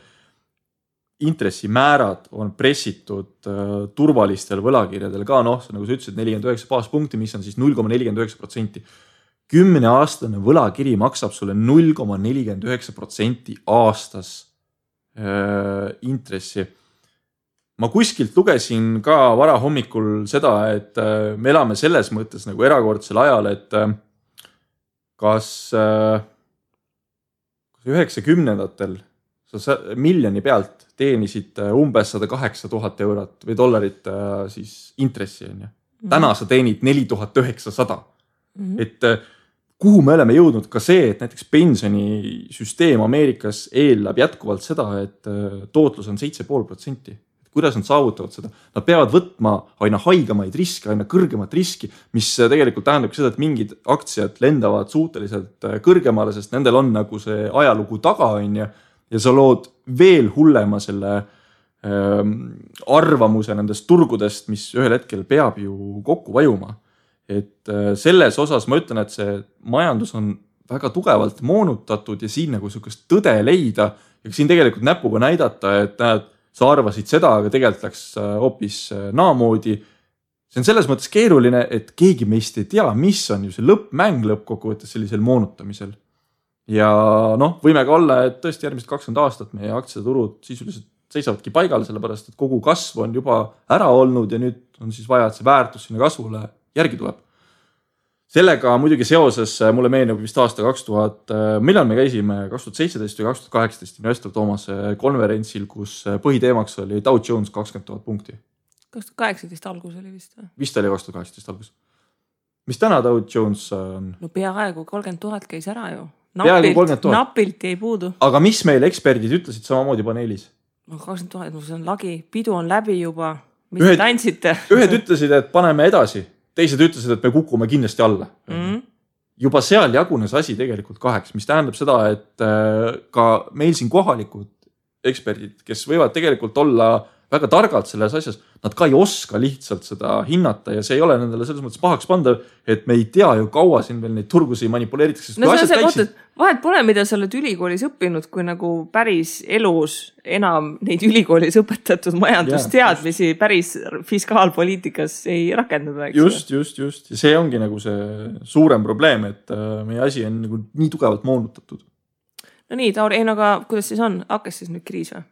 Intressimäärad on pressitud turvalistel võlakirjadel ka, nagu sa ütlesid, 49 baaspunkti, mis on siis 0,49%. 10-aastane võlakiri maksab sulle 0,49% aastas intressi. Ma kuskilt lugesin ka vara hommikul seda, et me elame selles mõttes nagu erakordsel ajal, et kas 90-ndatel sa miljoni pealt teenisid umbes 108 000 eurot või dollarit siis intressi. Täna sa teenid 4900. Et kuhu me oleme jõudnud ka see, et näiteks pensionisüsteem Ameerikas eelab jätkuvalt seda, et tootlus on 7,5%. Kuidas nad saavutavad seda? Nad peavad võtma aina haigemaid riske, aina kõrgemat riski, mis tegelikult tähendab seda, et mingid aktsiad lendavad suhteliselt kõrgemale, sest nendel on nagu see ajalugu taga on ja sa lood veel hullema selle arvamuse nendest turgudest, mis ühel hetkel peab ju kokku vajuma. Et selles osas ma ütlen, et see majandus on väga tugevalt moonutatud ja siin nagu sukest tõde leida ja siin tegelikult näpuga näidata, et sa arvasid seda, aga tegelikult läks hoopis naamoodi. See on selles mõttes keeruline, et keegi meist ei tea, mis on ju see lõppmäng lõppkokkuvõttes sellisel moonutamisel. Ja võime ka olla, et tõesti järgmised 20 aastat meie aktsiaturud sisuliselt seisavadki paigal, sellepärast, et kogu kasv on juba ära olnud ja nüüd on siis vaja, et see väärtus sinna kasvule järgi tuleb. Sellega muidugi seoses mulle meenub vist aasta 2000, millal me käisime 2017 või 2018 Investor Thomas konverentsil, kus põhiteemaks oli Dow Jones 20 000 punkti. 2018 algus oli vist või? Vist oli 2018 algus. Mis täna Dow Jones on? No peaaegu 30 000 käis ära ju. Napilt ei puudu. Aga mis meil eksperdid ütlesid samamoodi paneelis? 20 000, see on lagi, pidu on läbi juba. Mis te tantsite? Ühed ütlesid, et paneme edasi. Teised ütlesid, et me kukume kindlasti alla. juba seal jagunes asi tegelikult kaheks, mis tähendab seda, et ka meil siin kohalikud eksperdid, kes võivad tegelikult olla väga targalt selles asjas, nad ka ei oska lihtsalt seda hinnata ja see ei ole nendele selles mõttes pahaks pandav, et me ei tea ju kaua siin veel neid turgusi manipuleeritakse. No see on see, vahet pole, mida sa oled ülikoolis õppinud, kui nagu päris elus enam neid ülikoolis õpetatud majandusteadmisi päris fiskaalpoliitikas ei rakendada. Just. Ja see ongi nagu see suurem probleem, et meie asi on nagu nii tugevalt moonutatud. No nii, Tauri, aga kuidas siis on? Hakkas siis nüüd kriis või?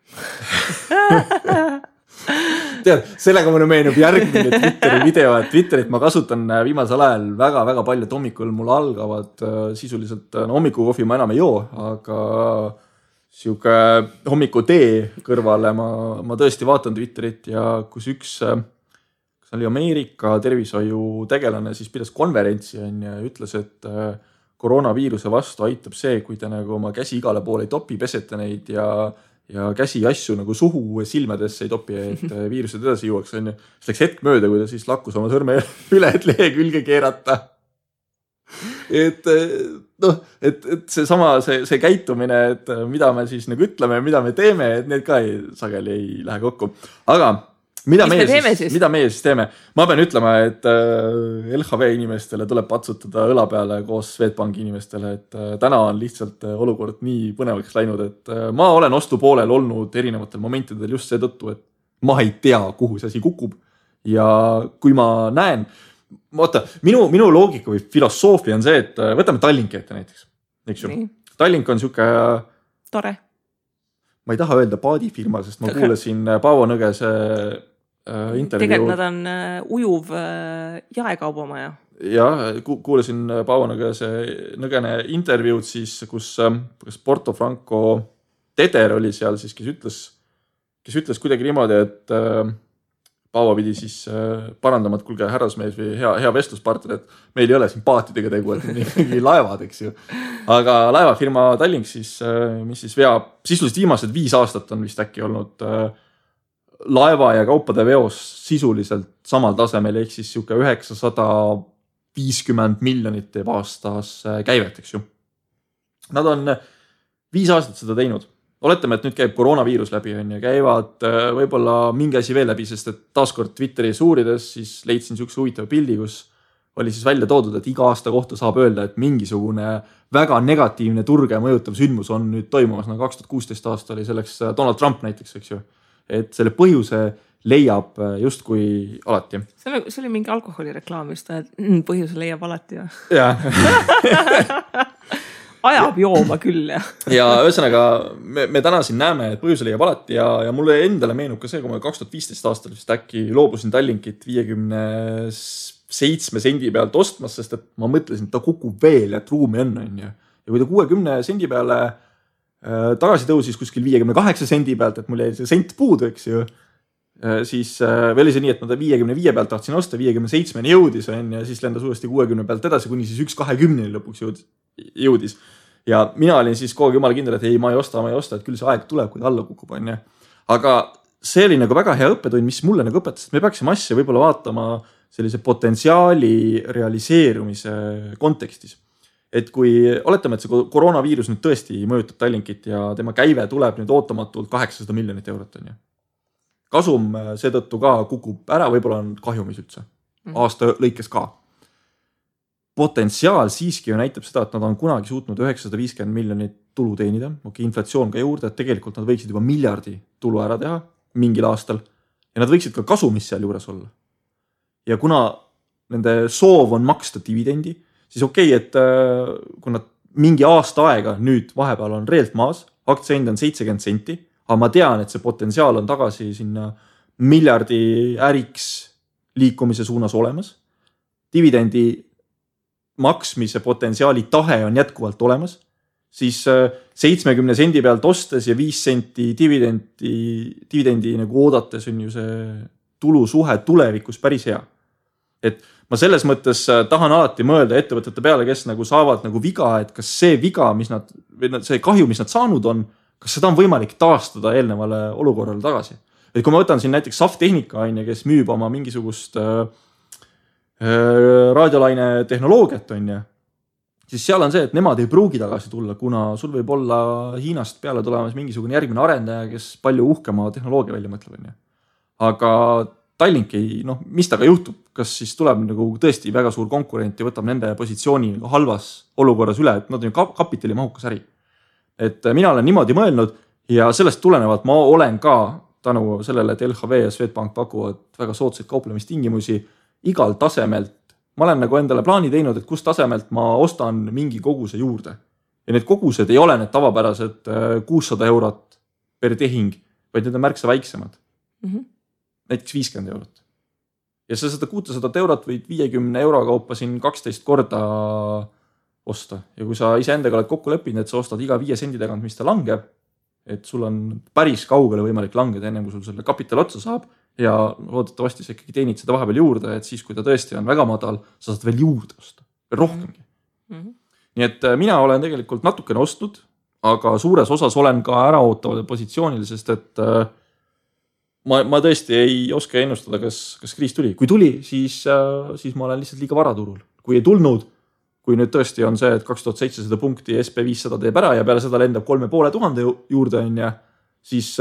Tead, sellega mulle meenub järgmine Twitteri video, et Twitterit ma kasutan viimasel ajal väga-väga palju, et hommikul mul algavad sisuliselt, hommikukohvi ma enam ei joo, aga siuke hommikutee kõrvale ma tõesti vaatan Twitterit ja kus üks oli Ameerika tervishoiu tegelane, siis pidas konverentsi ja ütles, et koroonaviiruse vastu aitab see, kui te nagu oma käsi igale poole ei topi, pesete neid ja käsi asju nagu suhu silmadesse ei topi, et viirused edasi jõuaks. See läks hetk mööda, kui ta siis lakkus oma sõrme üle, et lehe külge keerata. Et see käitumine, et mida me siis nagu ütleme, mida me teeme, et need ka sageli ei lähe kokku. Aga mida meie siis teeme? Ma pean ütlema, et LHV inimestele tuleb patsutada õla peale koos Swedbanki inimestele, et täna on lihtsalt olukord nii põnevaks läinud, et ma olen ostupoolel olnud erinevatel momentidel just seetõttu, et ma ei tea, kuhu see asi kukub. Ja kui ma näen, minu loogika või filosoofia on see, et võtame Tallinki ette näiteks. Tallink on siuke tore. Ma ei taha öelda paadifirma, sest ma kuulasin Paavo Nõgese intervjuu. Tegelikult nad on ujuv jaekaubamaja. Ja, kuulasin Paavo Nõgene intervjuud siis, kus Porto Franco Teder oli seal siis, kes ütles kuidagi niimoodi, et Paavo pidi siis parandama, et kulge härrasmees või hea vestluspartner, et meil ei ole siin paatidega tegu, et ikkagi laevad, eks ju. Aga laevafirma Tallink siis, mis siis veab, sisuliselt viimased 5 aastat on vist äkki olnud laeva ja kaupade veos sisuliselt samal tasemel, ehk siis siuke 950 miljonit teeb aastas käivet, eks ju. Nad on 5 aastat seda teinud. Oletame, et nüüd käib koroonaviirus läbi ja käivad võib-olla mingi asi veel läbi, sest et taaskord Twitteris uurides siis leidsin siukse huvitava pildi, kus oli siis välja toodud, et iga aasta kohta saab öelda, et mingisugune väga negatiivne turge mõjutav sündmus on nüüd toimumas. 2016 aasta oli selleks Donald Trump näiteks, eks ju. Et selle põhjuse leiab just kui alati. See oli mingi alkoholireklaam just, et põhjuse leiab alati. Ja. Ajab jooma küll. Ja ühesõnaga, me täna siin näeme, et põhjuse leiab alati ja mulle endale meenub ka see, kui ma 2015 aastal vist äkki loobusin Tallinkit 57 sendi pealt ostmas, sest et ma mõtlesin, et ta kukub veel, et ruumi on. Ja kui ta 60 sendi peale tagasi tõusis kuskil 58 sendi pealt, et mul jäi see sent puudu, eks ju, siis või oli see nii, et ma ta 55 pealt tahtsin osta, 57 jõudis ja siis lendas uuesti 60 pealt edasi, kuni siis 1.20 lõpuks jõudis. Ja mina olin siis kogu aeg jumala kindel, et ei, ma ei osta, et küll see aeg tuleb, kui ta alla kukub. Aga see oli nagu väga hea õppetund, mis mulle nagu õpetas, et me peaksime asja võib-olla vaatama sellise potentsiaali realiseerumise kontekstis. Et kui oletame, et see koroonaviirus nüüd tõesti mõjutab Tallinkit ja tema käive tuleb nüüd ootamatult 800 miljonit eurot. Kasum seetõttu ka kukub ära, võib-olla on kahjumis üldse. Aasta lõikes ka. Potentsiaal siiski ju näitab seda, et nad on kunagi suutnud 950 miljonit tulu teenida. Inflatsioon ka juurde, et tegelikult nad võiksid juba miljardi tulu ära teha mingil aastal ja nad võiksid ka kasumis seal juures olla. Ja kuna nende soov on maksta dividendi, siis okei, et kui nad mingi aasta aega nüüd vahepeal on reelt maas, aktsiahind on 70 senti, aga ma tean, et see potentsiaal on tagasi sinna miljardi äriks liikumise suunas olemas. Dividendi maksmise potentsiaali tahe on jätkuvalt olemas, siis 70 sendi pealt ostes ja 5 senti dividendi nagu oodates on ju see tulusuhe tulevikus päris hea. Et ma selles mõttes tahan alati mõelda ettevõtete peale, kes nagu saavad nagu viga, et kas see viga, see kahju, mis nad saanud on, kas seda on võimalik taastada eelnevale olukorrale tagasi. Et kui ma võtan siin näiteks Saftehnika, kes müüb oma mingisugust raadiolaine tehnoloogiat, siis seal on see, et nemad ei pruugi tagasi tulla, kuna sul võib olla Hiinast peale tulemas mingisugune järgmine arendaja, kes palju uhkema tehnoloogia välja mõtleb. Aga Tallink ei, mis taga juhtub, kas siis tuleb nagu tõesti väga suur konkurent ja võtab nende positsiooni halvas olukorras üle, et nad on ju kapitalimahukas äri. Et mina olen niimoodi mõelnud ja sellest tulenevalt ma olen ka tänu sellele, et LHV ja Swedbank pakuvad väga soodsaid kauplemistingimusi igal tasemelt. Ma olen nagu endale plaani teinud, et kus tasemelt ma ostan mingi koguse juurde. Ja need kogused ei ole need tavapärased 600 eurot per tehing, vaid need on märksa väiksemad. Näiteks 50 eurot. Ja sa seda 600 eurot võid 50 euro kaupa siin 12 korda osta. Ja kui sa ise endaga oled kokku leppinud, et sa ostad iga 5 sendi tagant, mis ta langeb, et sul on päris kaugele võimalik langeda enne, kui sul selle kapital otsa saab ja loodetavasti sa ikkagi teenid seda vahepeal juurde, et siis, kui ta tõesti on väga madal, sa saad veel juurde osta, veel rohkemgi. Nii et mina olen tegelikult natukene ostnud, aga suures osas olen ka äraootavad positsioonil, sest et ma tõesti ei oska ennustada, kas kriis tuli. Kui tuli, siis ma olen lihtsalt liiga varaturul. Kui ei tulnud, kui nüüd tõesti on see, et 2700 punkti SP500 teeb ära ja peale seda lendab 3500 juurde on ja siis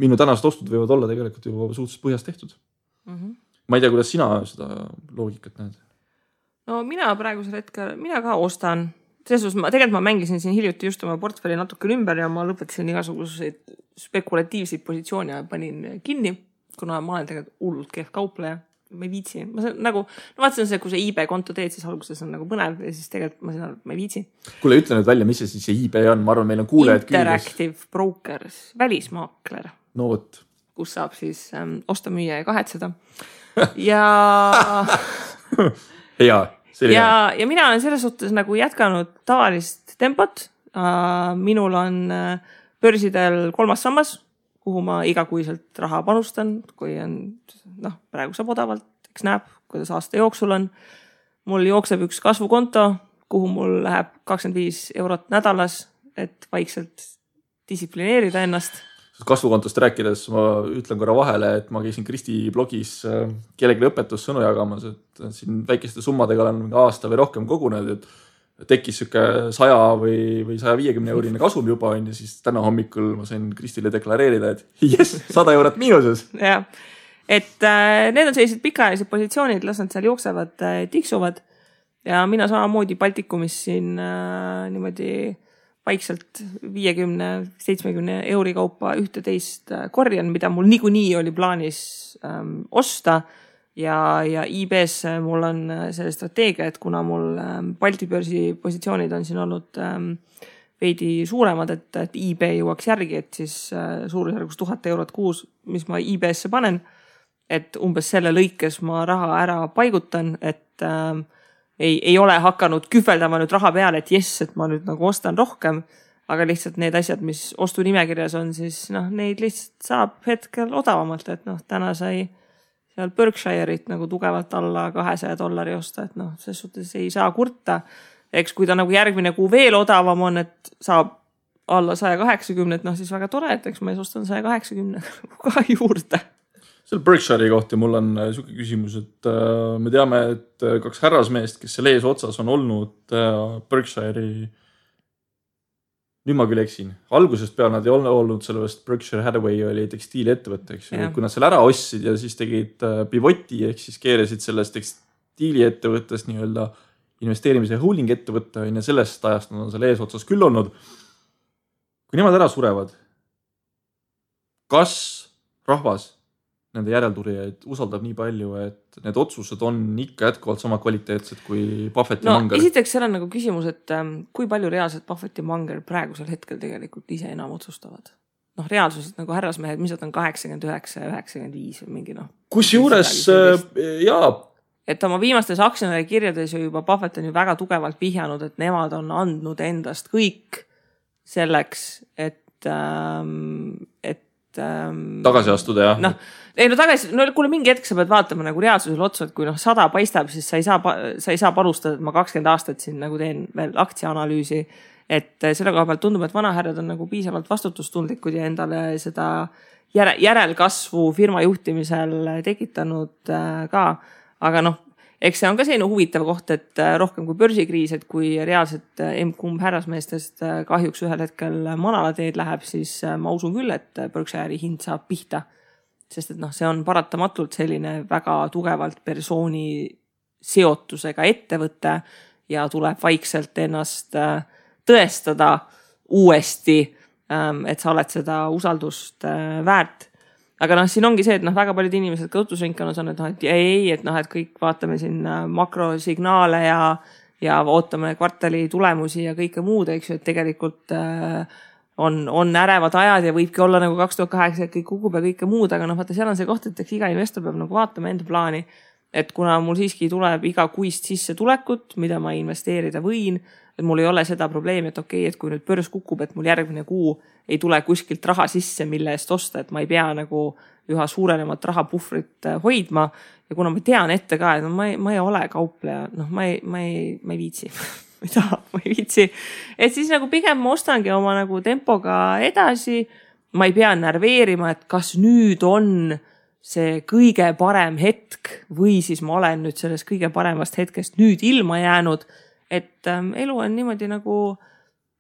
minu tänased ostud võivad olla tegelikult juba suhteliselt põhjas tehtud. Ma ei tea, kuidas sina seda loogikat näed? No mina praegusel hetkel, mina ka ostan. Selles tegelikult ma mängisin siin hiljuti just oma portfelli natuke ümber ja ma lõpetasin igasuguseid spekulatiivseid positsioone ja panin kinni, kuna ma olen tegelikult hullult kehv kaupleja. Ma ei viitsi. Vaatasin see, kui see eBay konto teed, siis alguses on nagu põnev ja siis tegelikult ma ei viitsi. Kuule, ütle nüüd välja, mis see siis eBay on? Ma arvan, meil on kuulejad Interactive Brokers, välismaakler. No võt. Kus saab siis osta, müüa ja kahetseda. Ja... Hea. Ja mina olen selles suhtes nagu jätkanud tavalist tempot. Minul on börsidel 3. sammas, kuhu ma igakuiselt raha panustan, kui on, praegu saab odavalt, eks näeb, kuidas aasta jooksul on. Mul jookseb üks kasvukonto, kuhu mul läheb 25 eurot nädalas, et vaikselt distsiplineerida ennast. Kasvukontost rääkides ma ütlen korra vahele, et ma käisin Kristi blogis kellelegi õpetussõnu jagamas, et siin väikeste summadega olen aasta või rohkem kogunenud, et tekkis süke 100 või 150 eurine kasum juba on ja siis täna hommikul ma sain Kristile deklareerida, et yes, 100 eurot miinuses. Ja, et need on sellised pikaajalised positsioonid, las nad seal jooksevad, tiksuvad ja mina samamoodi Baltikumis siin niimoodi vaikselt 50-70 euri kaupa 11 korjan, mida mul niikuinii oli plaanis osta ja IBS mul on selle strateegia, et kuna mul Balti börsi positsioonid on siin olnud veidi suuremad, et IB jõuaks järgi, et siis suurusjärgus 1000 eurot kuus, mis ma IBS-se panen, et umbes selle lõikes ma raha ära paigutan, et ei ole hakanud kühveldama nüüd raha peale, et et ma nüüd nagu ostan rohkem, aga lihtsalt need asjad, mis ostu nimekirjas on, siis neid lihtsalt saab hetkel odavamalt, et täna sai seal Berkshire'it nagu tugevalt alla $200 osta, et selles suhtes ei saa kurta. Eks kui ta nagu järgmine kuu veel odavam on, et saab alla 180, siis väga tore, et eks ma ostan 180 ka juurde. Selle Berkshire'i kohta mul on suke küsimus, et me teame, et 2 härrasmeest, kes selle ees otsas on olnud Berkshire'i, nüüd ma küll eksin, algusest peale nad ei ole olnud sellest Berkshire Hathaway oli tekstiiliettevõte, eks ju, kui nad selle ära ostsid ja siis tegid pivoti, ehk siis keerasid sellest tekstiiliettevõttest nii-öelda investeerimise holding ettevõtte ja sellest ajast nad on selle ees otsas küll olnud. Kui nemad ära surevad, kas rahvas nende järelturijaid usaldab nii palju, et need otsused on ikka jätkuvalt sama kvaliteetsed kui Buffett ja Munger? Esiteks seal on nagu küsimus, et kui palju reaalselt Buffett ja Munger praegusel hetkel tegelikult ise enam otsustavad. Reaalsuselt nagu härrasmehed, mis on 89 ja 95 või mingi Kusjuures, jaa. Et oma viimastes aktsionäri kirjades juba Buffett on ju väga tugevalt vihjanud, et nemad on andnud endast kõik selleks, et tagasi astuda, jah? Kuule mingi hetk sa pead vaatama nagu reaalsusel otsa, et kui 100 paistab, siis sa ei saa panustada, et ma 20 aastat siin nagu teen veel aktsiaanalüüsi, et selle koha pealt tundub, et vanahärjad on nagu piisavalt vastutustundlikud ja endale seda järelkasvu firma juhtimisel tekitanud ka, aga eks see on ka selline huvitav koht, et rohkem kui börsikriis, et kui reaalselt kumb härrasmeestest kahjuks ühel hetkel manalateed läheb, siis ma usun küll, et Berkshire'i hind saab pihta. Sest et see on paratamatult selline väga tugevalt persooni seotusega ettevõte ja tuleb vaikselt ennast tõestada uuesti, et sa oled seda usaldust väärt. Aga siin ongi see, et väga paljud inimesed ka õhtusringkonnas on, et et kõik vaatame siin makrosignaale ja ootame kvartali tulemusi ja kõike muud, eks ju, et tegelikult on ärevad ajad ja võibki olla nagu 2008, et kõik kukub ja kõike muud, aga vaata, seal on see koht, et eks iga investor peab vaatama enda plaani, et kuna mul siiski tuleb iga kuist sissetulekut, mida ma investeerida võin, et mul ei ole seda probleemi, et okei, et kui nüüd börs kukub, et mul järgmine kuu ei tule kuskilt raha sisse, mille eest osta, et ma ei pea üha suurenemat rahapuhvrit hoidma. Ja kuna ma tean ette ka, et ma ei ole kaupleja, ma ei viitsi. ma ei viitsi. Et siis pigem ma ostangi oma tempoga edasi. Ma ei pea närveerima, et kas nüüd on see kõige parem hetk või siis ma olen nüüd sellest kõige paremast hetkest nüüd ilma jäänud. Et elu on niimoodi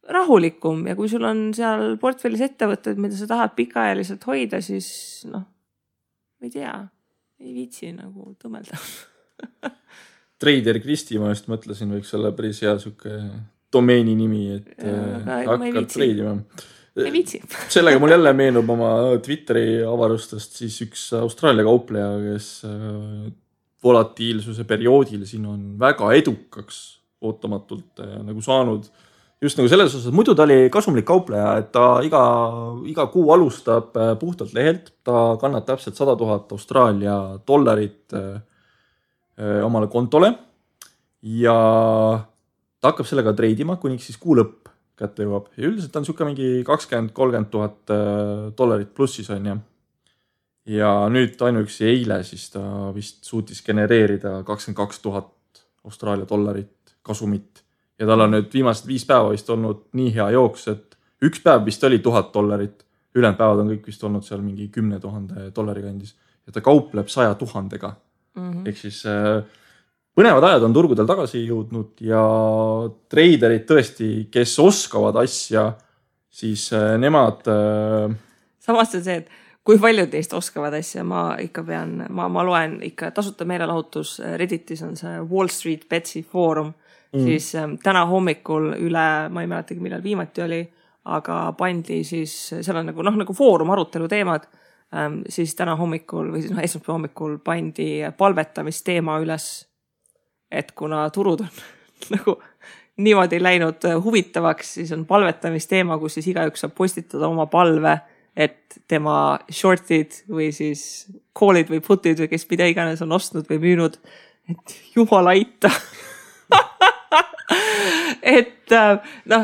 rahulikum ja kui sul on seal portfellis ettevõtted, mida sa tahad pikaajaliselt hoida, siis ma ei tea, ei viitsi tõmelda. Trader Kristi, ma just mõtlesin, võiks olla päris hea suke domeeni nimi, et hakkab treidima. Ei viitsi. Sellega mul jälle meenub oma Twitteri avarustest siis üks Austraalia kaupleja, kes volatiilsuse perioodil siin on väga edukaks ootamatult saanud just selles osas, muidu ta oli kasumlik kaupleja, et ta iga kuu alustab puhtalt lehelt, ta kannab täpselt 100 000 Austraalia dollarit omale kontole ja ta hakkab sellega treidima, kuniks siis kuu lõpp kätte jõuab ja üldiselt on siuke mingi 20-30 000 dollarit plussis on ja nüüd ainuüksi eile siis ta vist suutis genereerida 22 000 Austraalia dollarit kasumit ja tal on nüüd viimased 5 päeva vist olnud nii hea jooks, et üks päev vist oli $1000, ülejäänud päevad on kõik vist olnud seal mingi 10 000 dollari kandis ja ta kaupleb 100 000-ga. Ehk siis põnevad ajad on turgudel tagasi jõudnud ja treiderid tõesti, kes oskavad asja, siis nemad... Samas on see, et kui paljud teist oskavad asja, ma loen ikka tasuta meelelahutus, Redditis on see Wall Street Betsy foorum, siis täna hommikul üle, ma ei mäletagi millal viimati oli, aga pandi siis, seal on nagu foorum arutelu teemad, siis täna hommikul või siis esmaspäeva hommikul pandi palvetamisteema üles, et kuna turud on niimoodi läinud huvitavaks, siis on palvetamisteema, kus siis igaüks saab postitada oma palve, et tema shortid või siis call'id või putid või kes mida iganes on ostnud või müünud, et jumal aita. Et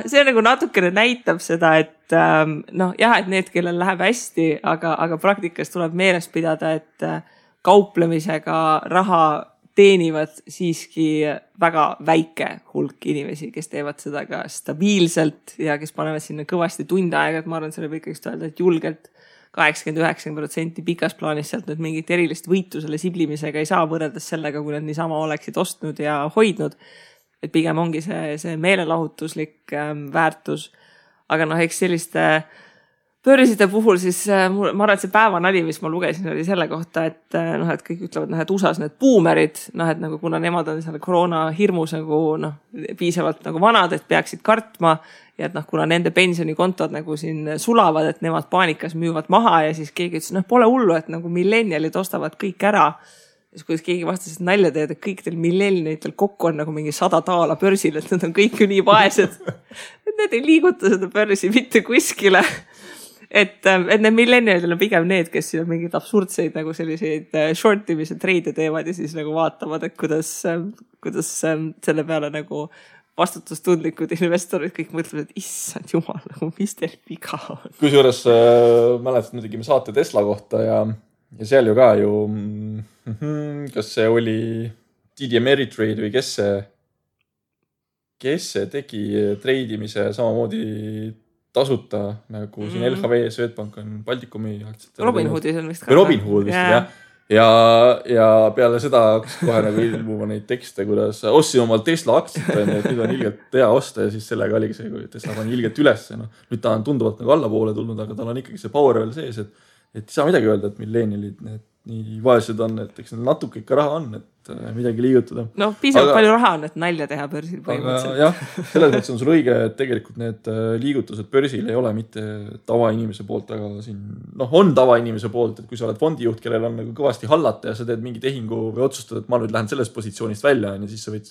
see natukene näitab seda, et et need, kellel läheb hästi, aga praktikas tuleb meeles pidada, et kauplemisega raha teenivad siiski väga väike hulk inimesi, kes teevad seda ka stabiilselt ja kes panevad sinna kõvasti tunde aega, et ma arvan, selle võib ikkagi öelda, et julgelt 80-90% pikas plaanis sealt nüüd mingit erilist võitu selle siblimisega ei saa võrreldes sellega, kui nad niisama oleksid ostnud ja hoidnud. Et pigem ongi see meelelahutuslik väärtus. Aga eks selliste börside puhul siis ma arvan, et see päevanali, mis ma lugesin, oli selle kohta, et kõik ütlevad, et USAs need boomerid, et kuna nemad on selle koroona hirmus piisavalt vanad, et peaksid kartma ja et kuna nende pensionikontod siin sulavad, et nemad paanikas müüvad maha ja siis keegi ütles, pole hullu, et millennialid ostavad kõik ära. Siis kuidas keegi vastas, et nalja teed, et kõik teil millennialitel kokku on mingi 100 taala börsil, et nad on kõik ju nii vaesed. Et need ei liiguta seda börsi mitte kuskile. Et need millennialidel on pigem need, kes siin on mingid absurdseid selliseid shortimise treide teevad ja siis vaatavad, et kuidas selle peale vastutustundlikud investorid kõik mõtlevad, et issand jumal, mis teil viga on. Kusjuures mäletad, me tegime saate Tesla kohta ja seal ju ka kas see oli TD Ameritrade või kes see tegi treidimise samamoodi tasuta, nagu siin LHV, Swedbank on Baltikumi aktsiatel. Robinhoodis on vist ka. Robinhood vist, jah. ja peale seda hakkas kohe nagu ilmuma neid tekste, kuidas ostsin omal Tesla aktsiat, et nüüd on ilgelt hea osta ja siis sellega oligi see, kui Tesla pani ilgelt üles. No, nüüd ta on tunduvalt nagu allapoole tulnud, aga tal on ikkagi see power veel sees, et ei saa midagi öelda, et millennialid need nii vaesed on, et eks neil natuke ikka raha on, et midagi liigutada. No piisavalt palju raha on, et nalja teha börsil põhimõtteliselt. Jah, selles mõttes on sul õige, et tegelikult need liigutused börsil ei ole mitte tavainimese poolt, aga siin on tavainimese poolt, et kui sa oled fondijuht, kellel on nagu kõvasti hallata ja sa teed mingi tehingu või otsustad, et ma nüüd lähen sellest positsioonist välja ja siis sa võid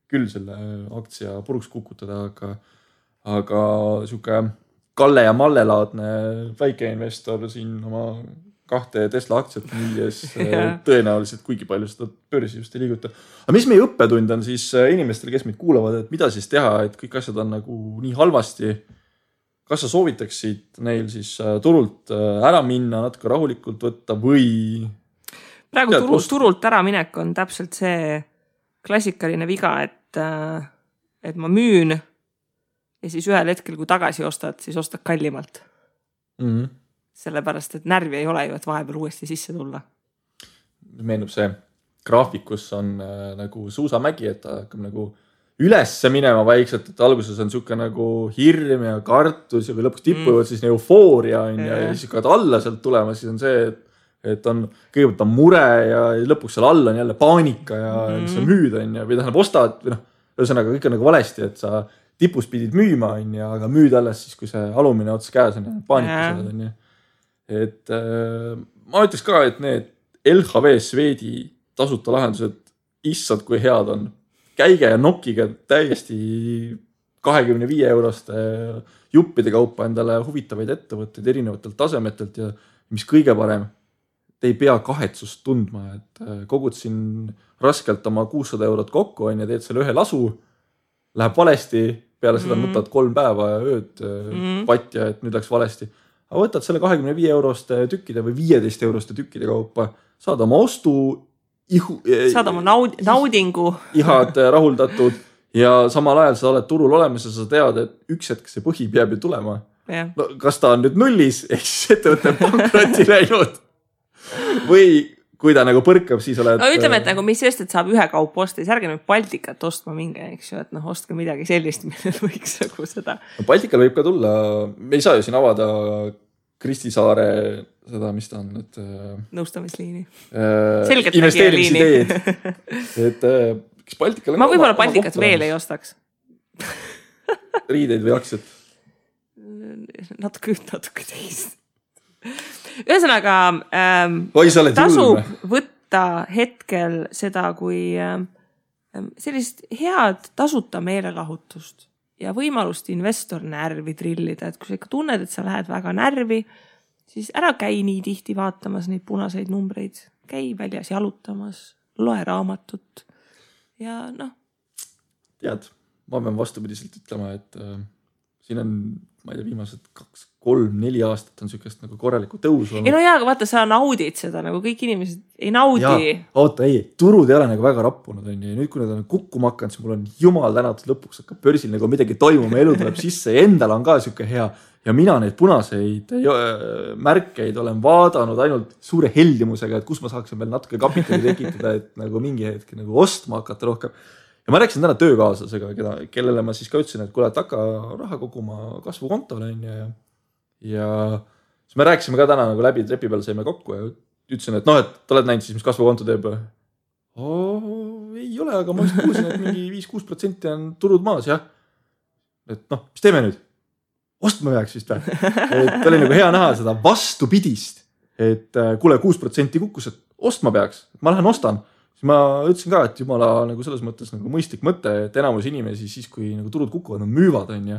küll selle aktsia puruks kukutada, aga siuke Kalle ja Malle laadne väikeinvestor siin oma 2 Tesla aktsiat müües tõenäoliselt kuigi palju seda börsi just ei liiguta. Aga mis meie õppetund on siis inimestele, kes meid kuulavad, et mida siis teha, et kõik asjad on nagu nii halvasti. Kas sa soovitaksid neil siis turult ära minna, natuke rahulikult võtta või? Praegu turult ära minek on täpselt see klassikaline viga, et ma müün ja siis ühel hetkel, kui tagasi ostad, siis ostad kallimalt. Sellepärast, et närvi ei ole ju, et vahepeal uuesti sisse tulla. Meenub see graafikus on nagu suusamägi, et ta hakkab nagu ülesse minema vaikselt, et alguses on siuke nagu hirm ja kartus ja kui lõpuks tippuvad siis eufooria on ja siis hakkavad alla sealt tulema, siis on see, et on kõigepealt on mure ja lõpuks seal all on jälle paanika ja sa müüd on ja või tähendab ostad või ühesõnaga kõik on nagu valesti, et sa tipus pidid müüma on ja aga müüd alles siis, kui see alumine ots käes on ja paanika saad on ja et ma ütleks ka, et need LHV Swedi tasuta lahendused issad kui head on. Käige ja nokkige täiesti 25 euroste juppide kaupa endale huvitavaid ettevõtteid erinevatelt tasemetelt ja mis kõige parem, te ei pea kahetsust tundma, et kogud siin raskelt oma 600 eurot kokku on ja teed selle ühe lasu, läheb valesti, peale seda nutad 3 päeva ja ööd patja, et nüüd läks valesti. Aga võtad selle 25 euroste tükkide või 15 euroste tükkide kaupa, saad oma ostu, saad oma naudingu, ihad rahuldatud ja samal ajal sa oled turul olemas ja sa tead, et üks hetk see põhi peab ju tulema. No, kas ta on nüüd nullis, ehk siis ettevõtte pankroti läinud või kui ta nagu põrkab, siis oled... No ütleme, et nagu mis just, et saab ühe kaup osta, siis ärge nüüd Baltikat ostma minge, eks ju, et ostke midagi sellist, millel võiks nagu seda... No, Baltikal võib ka tulla, me ei saa ju siin avada Kristi Saare seda, mis ta on, et... Nõustamisliini. Investeerimisideenid. Et kes Baltikal... Ma võib-olla Baltikat veel ei ostaks. Riideid või aktsiat? Natuke teist. Ühesõnaga, tasub võtta hetkel seda kui sellist head tasuta meelelahutust ja võimalust investor närvi trillida, et kui sa ikka tunned, et sa lähed väga närvi, siis ära käi nii tihti vaatamas neid punaseid numbreid, käi väljas jalutamas, loe raamatut ja Tead, ma pean vastupidiselt ütlema, et siin on, ma ei tea, viimased 2, 3, 4 aastat on sükest nagu korraliku tõusu. Ei no jaa, aga vaata, sa naudid seda, nagu kõik inimesed ei naudi. Oota, ei, turud ei ole nagu väga rappunud. On ja nüüd, kui nad on kukkuma hakanud, siis mul on jumal tänatud lõpuks hakkab börsil nagu midagi toimuma, elu tuleb sisse ja endal on ka süke hea. Ja mina neid punaseid märkeid olen vaadanud ainult suure heldimusega, et kus ma saaksin veel natuke kapitali tekitada, et nagu mingi hetk nagu ostma hakata rohkem. Ja ma rääkisin täna töökaaslasega, kellele ma siis ka ütlesin, et kuule, et hakka raha koguma kasvukontole ja siis me rääkisime ka täna nagu läbi trepi peal saime kokku ja ütlesin, et et oled näinud siis, mis kasvukonto teeb. Ei ole, aga ma just kuulsin, et mingi 5-6% on turud maas, jah. Et mis teeme nüüd? Ostma peaks vist või? Et oli nagu hea näha seda vastupidist, et kuule 6% kukkus, et ostma peaks, et ma lähen ostan. Ma ütlesin ka, et jumala nagu selles mõttes nagu mõistlik mõte, et enamus inimesi siis, kui nagu turud kukuvad, nad müüvad on ja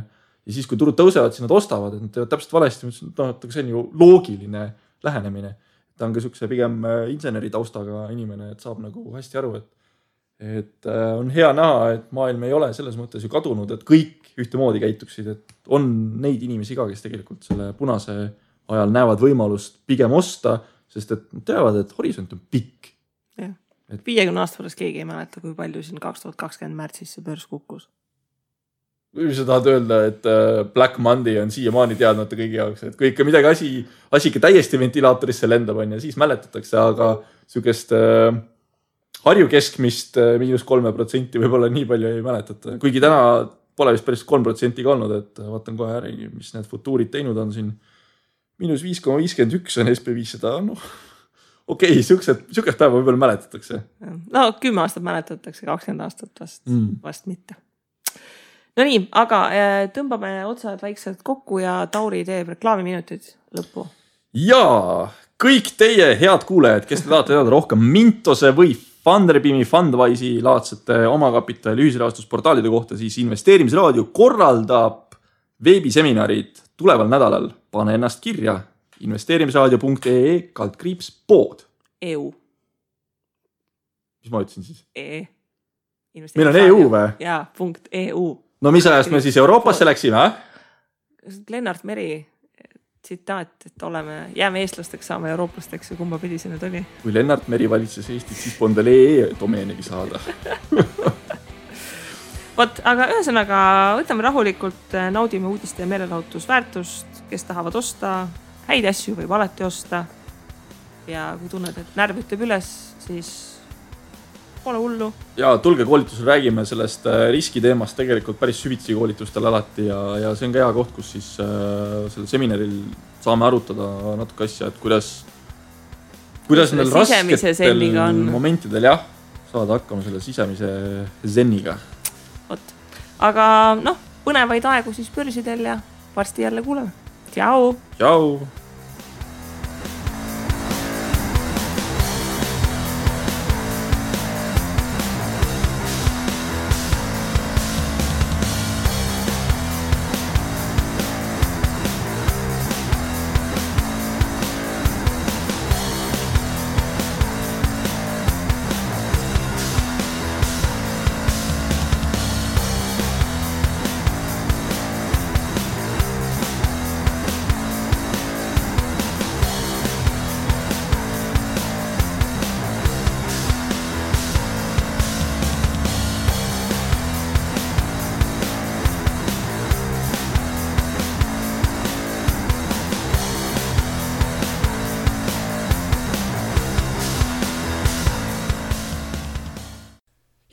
siis, kui turud tõusevad, siis nad ostavad, et nad teevad täpselt valesti. Ma ütlesin, et see on ju loogiline lähenemine. Ta on ka sükse pigem inseneri taustaga inimene, et saab nagu hästi aru, et on hea näha, et maailm ei ole selles mõttes ju kadunud, et kõik ühtemoodi käituksid, et on neid inimesi ka, kes tegelikult selle punase ajal näevad võimalust pigem osta, sest et nad teavad, et horisont on pikk. 50 aasta pärast keegi ei mäleta, kui palju siin 2020 märtsis see börs kukkus. Või sa tahad öelda, et Black Monday on siiamaani teadmata kõigi jaoks, et kui ikka midagi asi ikka täiesti ventilaatorisse lendab on ja siis mäletatakse, aga sükest Harju keskmist -3% võib-olla nii palju ei mäletata. Kuigi täna pole vist päris 3% ka olnud, et vaatan kohe äri, mis need futuurid teinud on siin. -5,51 on SP500, noh. Okei, sükest päeva võib-olla mäletatakse. No 10 aastat mäletatakse, 20 aastat vast mitte. No nii, aga tõmbame otsad vaikselt kokku ja Tauri teeb reklaamiminutid lõppu. Jaa, kõik teie head kuulajad, kes te tahate teada rohkem Mintose või Funderbeami, Fundwise'i laadsete omakapitali ühisrahastusportaalide kohta, siis investeerimisraadio korraldab veebiseminarid tuleval nädalal. Pane ennast kirja investeerimisraadio.ee/pood. EU. Mis ma ütlesin siis? Meil on EU või? Jaa, .eu. No mis ajast me siis Euroopasse läksime? Lennart Meri tsitaat, et jääme eestlasteks, saame eurooplasteks ja kumba pidi see nüüd oli. Kui Lennart Meri valitses Eestit, siis polnud domeenigi saada. Vot, aga ühesõnaga võtame rahulikult, naudime uudiste ja meelelahutusväärtust, kes tahavad osta, häid asju võib alati osta. Ja kui tunned, et närv ütleb üles, siis pole hullu. Ja tulge koolitusel, räägime sellest riskiteemast tegelikult päris süvitsi koolitustel alati ja see on ka hea koht, kus siis sellel seminaril saame arutada natuke asja, et kuidas meil rasketel momentidel saada hakkama selle sisemise zenniga. Vot. Aga põnevaid aegu siis börsidel ja varsti jälle kuuleme. Tšau! Tšau!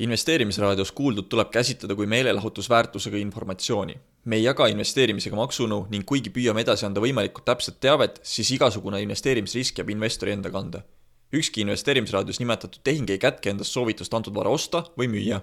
Investeerimisraadios kuuldud tuleb käsitleda kui meelelahutusväärtusega informatsiooni. Me ei jaga investeerimisega maksunõu ning kuigi püüame edasi anda võimalikult täpset teavet, siis igasugune investeerimisrisk jääb investori enda kanda. Ükski investeerimisraadios nimetatud tehing ei kätke endast soovitust antud vara osta või müüa.